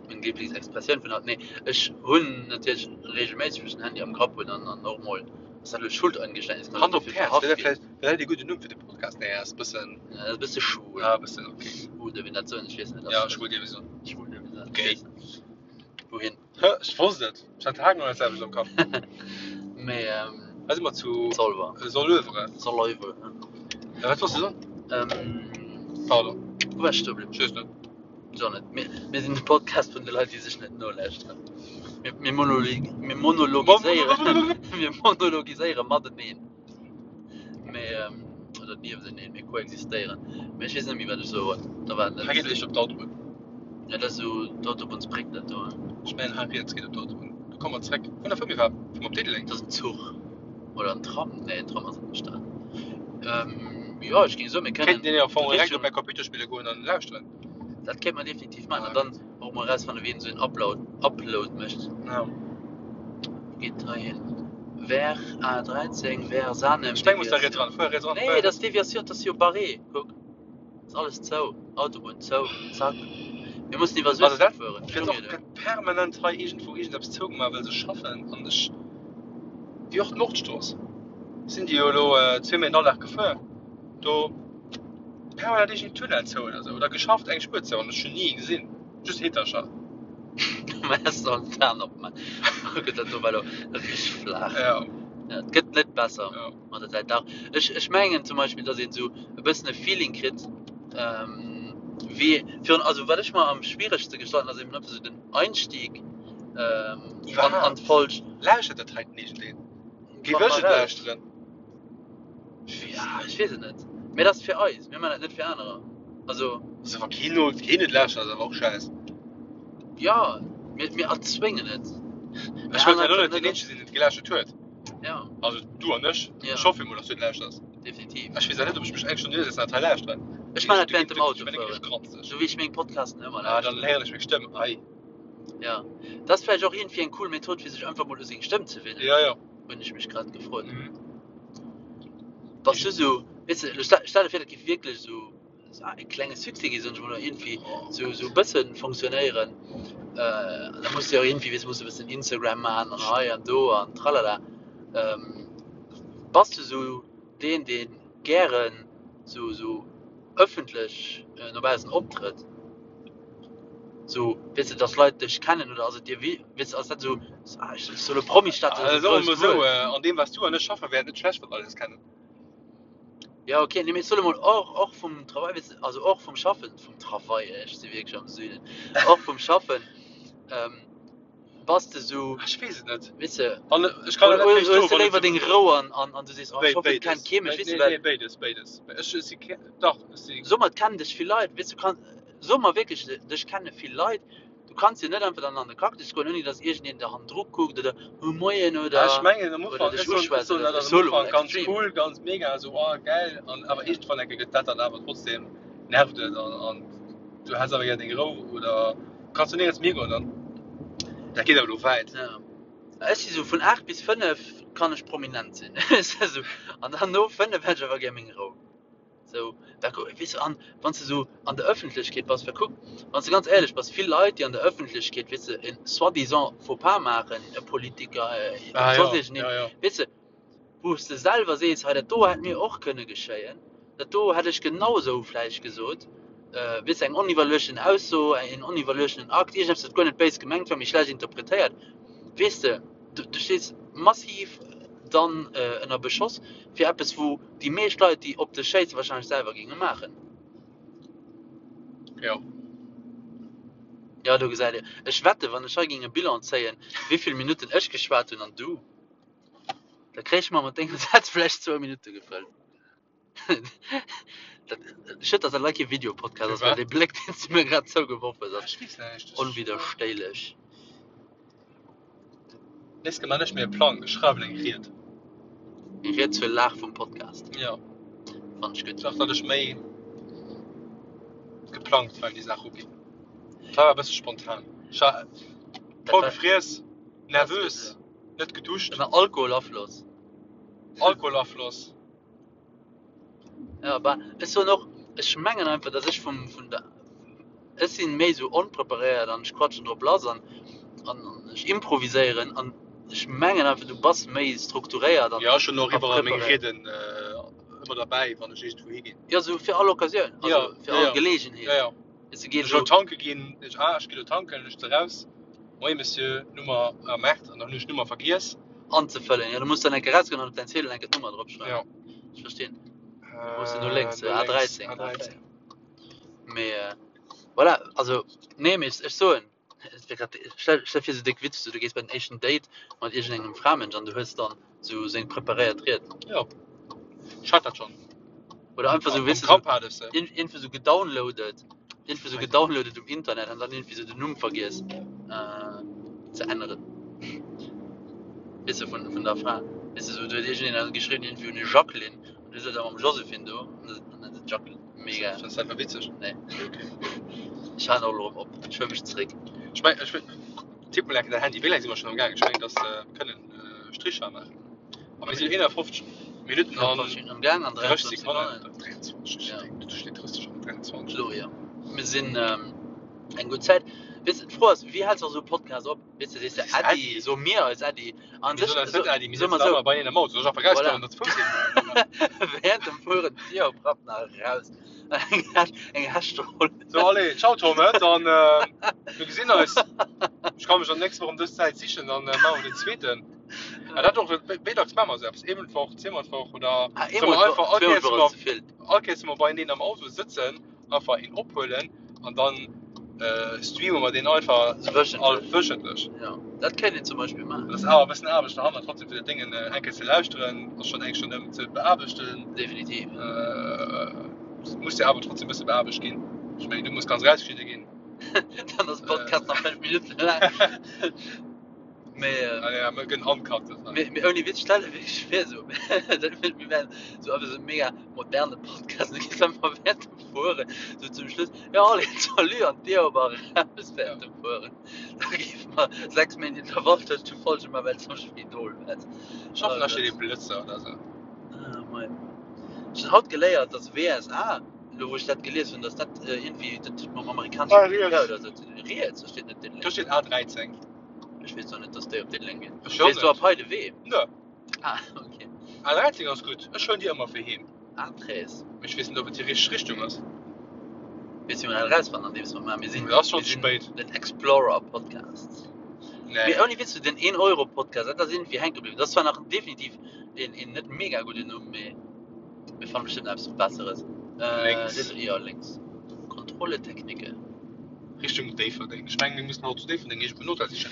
meng Liblingsexpressioun vun haut. Nee, ech hunn natierlech reegelméisseg wou ech den Handy am Grapp hunn an an och mol, ass dat elo Schuldeingeständnis, kann Hand ech op dofir d'Häerz, verhaft wär dat ginn? vläicht wär dat ee gudden Numm fir de Podcast? Nee, ass e bëssen, Ja, dat ass e bësse schwul. ah, e bëssen, okay. Oder wéi dat soen, ech weess net. Ja, schwul dierf ee soen. Schwul dierf ee soen. Gay. Wouhin? Hë, ech wosst et. Ech hat haargenau dat selwecht am Kapp. Mee, ähm. Hei si mer zu Zolwer. Soleuvre. Soleuvre. Ja, wat wolls de soen? Ähm. Pardon. Wou war ech stoe bliwwen? Ech weess net. Ech och net. Mir, mir sinn de Podcast vun de Leit, déi sech net nolauschteren. Mir, mir monologi, mir monologiséieren, mir monologiséiere mateneen. Mee, ähm, oder niewenteneen, mir koexistéieren. Mee ech weess net méi, wat ech soe wollt. Da war Hei geet eréischt op d'Autobunn. Ja, dat ass esou d'Autobunnsbréck, dat do. Ech mengen, hei riets geet op d'Autobunn. Do komme mer zréck. Vun der Fëmmee war, fuere mer op Diddeleng. Dat ass en Zuch. Oder en Tram? Nee, en Tram ass an der Stad. Ähm, jo, ech géing soen, mir kënnen. Kéinten een jo am Fong direkt op Richtung. mäi Computer spille goen an lauschteren. Dat kéint mer definitiv maachen. An dann och mol erausfannen, wien esou en Upload, Upload mécht. Ja. Wou geet et hei hin? Vers A13, vers Sanem, Ech meng, muss da riets ran. Fuer riets ran, Nee, fuer dat ass Deviation, dat ass jo barré. Kuck, ass alles zou. Autobunn zou, zack. Mir mussen iwwer Also Suessem dat fueren. gëtt och gëtt permanent hei iergendwou iergendeppes zougemaach, well se schaffen. An ech, wéi och d'Nordstrooss, sinn déi jo elo zweemol den Alldag gefuer. Do permanent iergend Tunnel zou oder sou, oder geschafft eng Spuer zou an ech hunn ni ee gesinn, just Heetercher. Mä ech soll d'Aen opman. Oh Gott, dat do war elo richteg flaach. Ja. Ja, et gëtt net besser Ja. mat der Zäit. Dach, ech, ech mengen zum Beispill, datt een esou e bëssen e Feeling kritt, ähm, wéi virun, also wat ech mer am schwieregste gestalten, ass eben einfach esou den Einstieg, ähm, an, an Iwwerhaapt. d'Folg. Lauschtert dat heiten iergendeen? Géif Fanne ech mer et raus. lauschteren? Ja, ech weess et net. Mee dat ass fir eis. Mir maachen dat net fir anerer. Also. Also wa keen no keen et lauschtert, ass awer och schäiss. Ja, mir, mir erzwéngen et. Ech wëllt ja lo net deen eenzege sinn, deen et gelauschtert huet. Ja. Also du an ech. Ja. Ech hoffe mol, dass du et lauschters. Definitiv. Ech weess awer net, ob ech mech eng Stonn hiersetzen an dat hei lauschteren. Ech maachen dat während dem Ech bin Autofueren. granzeg. Sou wéi ech meng Podcasten ëmmer Ah, dann lauschteren. héieren ech meng Stëmm. Ei. Ja. Dat ass vläicht och iergendwéi eng cool Method, fir sech einfach mol u seng Stëmm ze winnen. Ja, ja. Hunn ech mech grad gefrot. Mhm. Bass du sou, weess de, stell stell der vir, dat géif wierklech sou e klenge Succès gi, soen ech mol, oder iergendwéi sou sou e bësse fonctionnéieren. Äh, da muss de jo iergendwéi, weess de, muss de e bëssen Instagram maachen an hei an do an tralala. Ähm, bass du sou deen, dee gären sou sou ëffentlech no baussen optrëtt? Sou, weess de, dass Leit dech kennen oder ass et dir wi, weess de, ass dat sou, ah, ech soll e Promi-Status ass e Also soe mer grousst esou, Wuert. an deem wat s du an ech schaffen, wär et net schlecht, wann Leit eis kennen. Ja, okay, nee, mee ech soe mol och, och vum Travail, weess de, also och vum Schaffen, vum Travail, ech si wierklech am Süden, och vum Schaffen, bass de sou, Ech weess et net. weess de, An ech kann oder net oder méi hues stoen, de wann et léiwer sou deng Rou an, an, an du sees, oh, ech hoffen, et Béides. kennt kee mech, weess de, Nee, well. nee, béides, béides. Ech si ke, dach, ech si. Soe mer, et kennen dech vill Leit, weess du, kann, Soe mer wierklech, dech kenne vill Leit, du kanns jo net einfach dann an de Cactus goen, ouni datt iergendeen der hannendru kuckt oder oh moien oder Ah, ech mengen am oder Ufank, dech ech soen, ech uschwätzt soen oder dat ass sou. Ech am soe lo mol Ufank ganz extrem. cool, ganz mega, esou oh geil, an awer iergendwann enke gëtt dat dann awer trotzdem, nervt et an an du häss awer gär deng Rou oder kanns du néierens méi higoen dann. Dat geet awer elo wäit. Ja. Ech si sou vun 8 bis 5 kann ech prominent sinn, esou, an dann no 5 hätt ech awer gär meng Rou. Sou, da ku, weess de, an wann s de sou an der Ëffentlechkeet bass, well kuck, wann s de ganz éierlech bass, vill Leit, déi an der Ëffentlechkeet, weess de, en soi-disant Faux-pas maachen, e Politiker, e Ah, soss ja, iergendeen, ja, ja. weess de, wou s de selwer sees, hei dat do hätt mir och kënne geschéien, dat do hätt ech genau esou vläicht gesot, weess de, eng oniwwerluechten Ausso, en oniwwerluechtenen Akt, iergendeppes, wat guer net béis gemengt war, mee schlecht interpretéiert, weess de, du, du stees massiv dann ënner Beschoss fir eppes, wou déi meescht Leit, déi op dech schéissen, wahrscheinlech selwer géinge maachen. Jo. Jo, do gesäit Dir. Ech wetten, wann ech hei géing e Bilan zéien, wéi vill Minutten ech geschwat hunn an du, Da kréich mer mat denge Sätz vläicht zwou Minutte gefëllt. Dat, schued, dass dat leider kee Videopodcast ass, well dee Bléck, deen s du mir grad zougeworf hues, ass Ech weess näischt. onwidderstéilech. Nächst Kéier man ech mir e Plang, ech schreiwen eng Ried. Eng Ried zur Lag vum Podcast. Jo. Fannen ech gutt. Dach, datt ech méi geplangt war un déi Saach uginn. Et war e bësse spontan. Ech war voll gefriess, nervös, net geduscht. Ënner Alkoholafloss. Alkoholafloss. Ja, bah, ech soen och, ech mengen einfach, dass ech vum, vun der, ech sinn méi esou onpreparéiert an ech quatschen drop lass an, an ech improviséieren an ech mengen einfach, du bass méi strukturéiert an Ja, ech hunn och a iwwerall meng preparéiert. Rieden ëmmer derbäi, wann ech iergendwou higinn. Ja, esou fir all Occasioun, also Ja, fir ja, all ja. Geleegenheet. Ja, ja. Weess du, geet Ech elo esou. tanke ginn, ech, ah, ech gi lo tanken, ech ze raus, Moie Monsieur, Nummer am Maart, an dann hunn ech d'Nummer vergiess. Anzefëllen, ja, du muss dann eng Kéier rausgoen an op däin Ziedel eng Kéier d'Nummer dropschreiwen. Ja. Ech verstinn. Wou ass den no lénks? No lénks, A13. A13. Mee voilà, also nee, mee ech soen, et wier grad, stell stell vir sou déck witzeg, sou du gees bei den éischten Date mat iergendengem Framënsch an du hues dann sou seng preparéiert Ried. Jo, ech hat dat schonn. Oder einfach sou, Am weess de, Grapp sou hat ech se. iergendwou sou gedownloadet, iergendwou sou gedownloadet um Internet an dann iergendwéi sou den Numm vergiess ze änneren. Weess de, vun vun der Fra. Weess de, sou do huet iergendeen geschriwwen, iergendwéi un Jacqueline an du sëtz awer mam Joséphine do an dann ass et Jacqueline. Mega. Fënns du dat war witzeg? Nee. Okay. Ech halen och elo erëm op. Ech huele mech zeréck. Ech meng, ech tipp mol enke däin Handy. Wéi laang si mer schonn am gaang? Ech mengen, dass mer kënnen Stricher maachen. A mir sinn 51 Minutten an 51 am Gaang an 30 23 Sekonnen. Sekonnen. 23, Ja. do steet 30 an 23. Elo, jo. Mir sinn eng gutt Zäit. Weess de, d'Fro ass, wéi häls de esou e Podcast op? Weess de, sees de Sees Äddi, Äddi? soe mir eis Äddi. An Mir sech, soen eis so, net Äddi, mir soe mer sëtzen sou, awer beieneen am Auto. Soll ech einfach voilà. rauskommen an der Fouss hin? Während dem Fueren d'Dier oprappen a raus. Eng Häsch, eng Häschtroll. So, allez, ciao Tom, hä? Dann, äh, mir gesinn eis. Ech kann mech dann nächst Woch ëm dës Zäit sichen, dann äh, maache mer den zweeten. Ja, dat och, wéi dacks maache mer esou eppes? Eemol d'Woch, zweemol d'Woch oder Ah, solle eemol mer d'Woch, einfach all zweemol Kéiers, d'Woch wa ass mer, ze vill. all Kéiers, wa mer beieneen am Auto sëtzen, einfach een ophuelen an dann äh, streame mer deen einfach So all wöchentlech. wöchentlech. Ja, dat kéint een zum Beispill maachen. Dat ass awer e bëssen Aarbecht derhannert, trotzdem fir dat Déngen äh, eng Kéier ze lauschteren, ass schonn eng Stonn ëm ze beaarbechten. Definitiv. Äh, muss jo awer trotzdem e bësse beaarbecht ginn. Ech mengen, du muss ganz rausgeschnidde ginn. Dann ass de Podcast nach 5 Minutten laang. Mee, äh, Ah, ja, mir gënn uncut. mee, mee ouni Witz, stell dir wierklech vir, so, dat mir, mir wären so einfach so e mega moderne Podcast, da gees einfach während dem Fueren, so zum Schluss, ja, allez, salut, an d'Dier op a raus während dem Fueren. Da géife mer 6 Méint Intervall tëscht de Folgen man, well s am Spidol wäers. Ech hoffen, Oh da steet ee Gott. Blëtzer oder sou. Ah, mei. Ech hunn haut geléiert, dass WSA, elo wou ech dat gelies hunn, dass dat iergendwéi, dat huet mam amerikanesche Ah, Militär riets. oder sou ze dinn. Riets, do steet net Do Diddeleng. steet A13. Ech weess och net, dass déi op Diddeleng ginn. Ech och Weess du net. ab hei de Wee? Nö. Ah, okay. A13 ass gutt. Ech huelen déi ëmmer fir heem. A13. Mee ech weess net, ob et déi richteg Richtung ass. Weess du, wéi mer dat erausfannen, andeems mer maachen? Mir sinn, Mee ass schonn mir ze sinn spéit. den Explorer Podcast. Nee. Mee ouni Witz, den 1 Euro Podcast, dat ass iergendwéi hänke bliwwen. Dat ass zwar nach definitiv een, een net mega gudden Numm, mee mir fanne bestëmmt eppes Besseres. Äh, Lénks. den, jo, lénks. Contrôle technique. Richtung Déifferdeng. Ech mengen, mir mussen haut zu Déifferdeng iergendwou en Hotel sichen.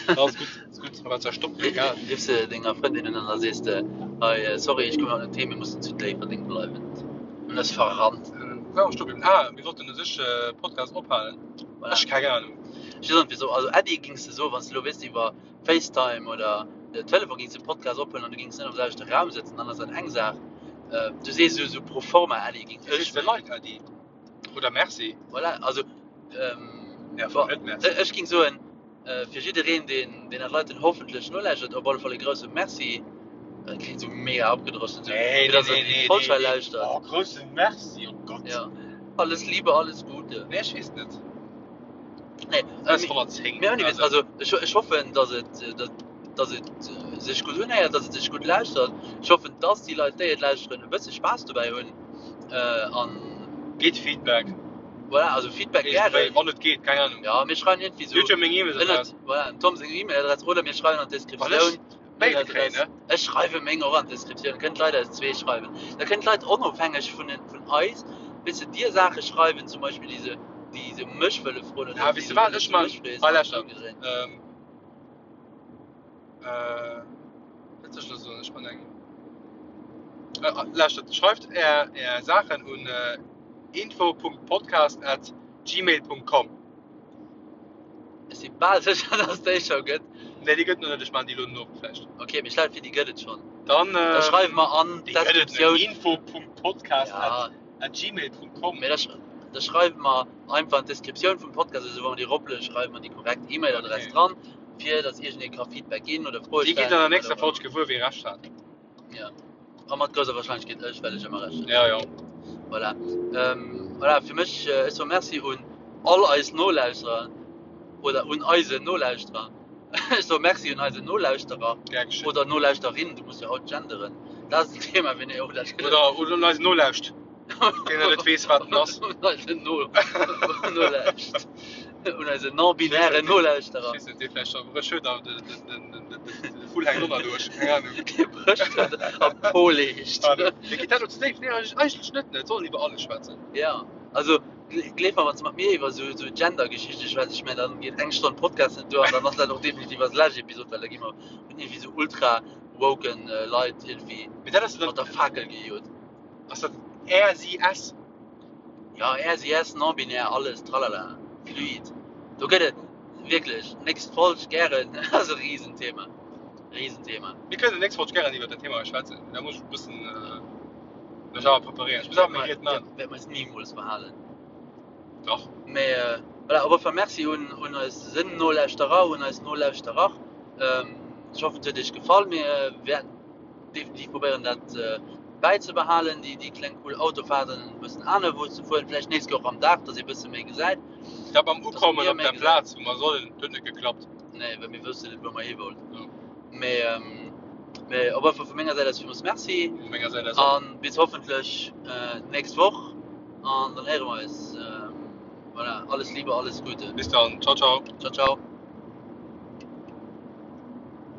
Ass gutt, ass gutt. A wat soll stoppen? Egal. Riffs de denger Frëndin un an da sees de, Hei, sorry, ech komme haut net heem, mir mussen zu Déifferdeng bleiwen. An ass verrannt. Wou ware mer stoe bliwwen? Ah, mir wollten u sech Podcast ophalen. Voilà. Ech keng Ahnung. Ech weess och net wisou. Also Äddi gings de soen, wann s de elo wéisst iwwer FaceTime oder Telefon gings de Podcast ophuelen an du gings net am selwechte Raum sëtzen, dann ass dat eng Saach. Du sees esou pro forma Äddi, ging Du ech sees de mengen. Leit Äddi. Oder Merci. Voilà, also ähm, Ja, bon, net Merci. ech ging soen, äh, fir jiddereen, deen, deen dat Leiten hoffentlech nolauschtert, op alle Fall e grousse Merci. Dat klingt so mega abgedroschen, so, Nee, fir nee, dass er nee, déi nee, Folg nee, hei nee. lauschtert. Oh, grousse Merci, oh Gott. Ja. Alles Liebe, alles Gute. Nee, ech weess net. Nee, äh, Das mir, 110. mir ouni Witz, Also, also ech, ech hoffen, dass et, äh, dass, dass et äh, sech gutt unhéiert, dass et sech gutt lauschtert. Ech hoffen, dass déi Leit, déi et lauschteren, e bësse Spaass dobäi hunn. Äh, an Geet Feedback. voilà, also Feedback Iergendwéi, gären. wann et geet, keng Ahnung. Ja, mir schreiwen irgendwie so Dir hutt jo meng E-Mail-Adress. ënnert, voilà, dem Tom seng E-Mail-Adress oder mir schreiwen an Wann ech d'Descriptioun Mail kréien, Mail-Adress. ne? Ech schreiwe meng och an d'Descriptioun. Kënnt Leit eis zwee schreiwen. Da kënnen d'Leit onofhängeg vun den, vun eis, weess de, dir Saache schreiwen, zum Beispill déi se, déi se mech wëlle froen oder Ah, déi weess de se wat, wëlle ech zu man, mech frees hei an lauschter, ëmgedréint. ähm, äh. Wat soll ech elo soen? Ech man eng. Lauschtert, schreift är, är Saachen un info.podcast at gmail.com. Ech si bal sécher, dass déi scho gëtt. Nee, déi gëtt nach net. Ech man déi elo no vläicht. Ok, mee ech lafe fir, déi gëtt et schonn. Dann, Da schreiwe mer an déi gëtt et net. d'Descriptioun. Info.podcast Ja. at gmail.com. Mee da, da schreiwe mer einfach an d'Descriptioun vum Podcast, also wa mer déi eroplueden, schreiwe mer déi korrekt E-Mail-Adress Okay. dran, fir dass iergendee ka Feedback ginn oder Froe Dir gitt stellen an der oder nächster wat Folg och gewuer, wee Recht hat. Ja. A mat grousser Warscheinlechkeet ech, well ech ëmmer Recht hunn. Ja, ja. Voilà. Ähm, voilà, fir mech, äh, ech soe Merci un all eis Nolauschterer oder un eisen Nolauschterer. Ech soe Merci un eisen Nolauschterer Gär geschéngt. oder Nolauschterin, du muss jo haut genderen. Dat ass en Thema, fir nee, oh, dat gëtt Oder, oder un eisen Nolauscht, deen nach net weess, wat en ass. Un eisen No, Nolauscht. Un eisen non-binären Nolauschterer. Ech weess net, dee vläicht scho brécht huet a de, de, de, de, de, de Vull hänkt och nach duerch. Keng Ahnung. Dee brécht huet a poleegt. Ah, nee. Geet dat lo ze déif? Nee, eigentlech net, ne? Et soll een iwwer alles schwätzen. Ja, also gleef mer, wann s de mat mir iwwer esou, esou Gender-Geschichte schwätz, ech mengen, dann geet eng Stonn Podcast net duer an dann ass dat och definitiv eis lescht Episod, well da gi mer vun iergendwéi esou ultra-woken Leit iergendwéi Mee dat ass mat der Fakel gejot. Ass dat RCS? Ja, RCS, non-binär, alles, tralala, fluid. Do gëtt et wierklech, nächst Folg gären, ass e Riesenthema. Riesenthema. Mir kënnen nächst Folg gären iwwer dat Thema hei schwätzen. Da muss ech e bëssen mech awer preparéieren. Ech muss awer meng Ried maachen. Wäerte mer eis nimools verhalen. Dach. Mee voilà, op alle Fall Merci un, un eis Nolauschterer, un eis Nolauschterer. Ech hoffen, et huet iech gefall. Mir wäerten definitiv probéieren dat bäizebehalen, déi, déi kleng cool Autofahrten e bëssen anerwou ze fueren, vläicht nächst Kéier och am Dag, dass ee bësse méi gesäit. Dat mam Dass Ukommen mir op méi der gesinn. Plaz, wou mer sollen, huet net geklappt. Nee, well mir wëssen net, wou mer hi wollten. Ja. Mee, mee op alle Fall vu menger Säit aus villmools Merci. Vu menger Säit aus och. An bis hoffentlech nächst Woch an dann héiere mer eis. Voilà, alles Liebe, alles Gute. Bis dann. Ciao, ciao. Ciao, ciao.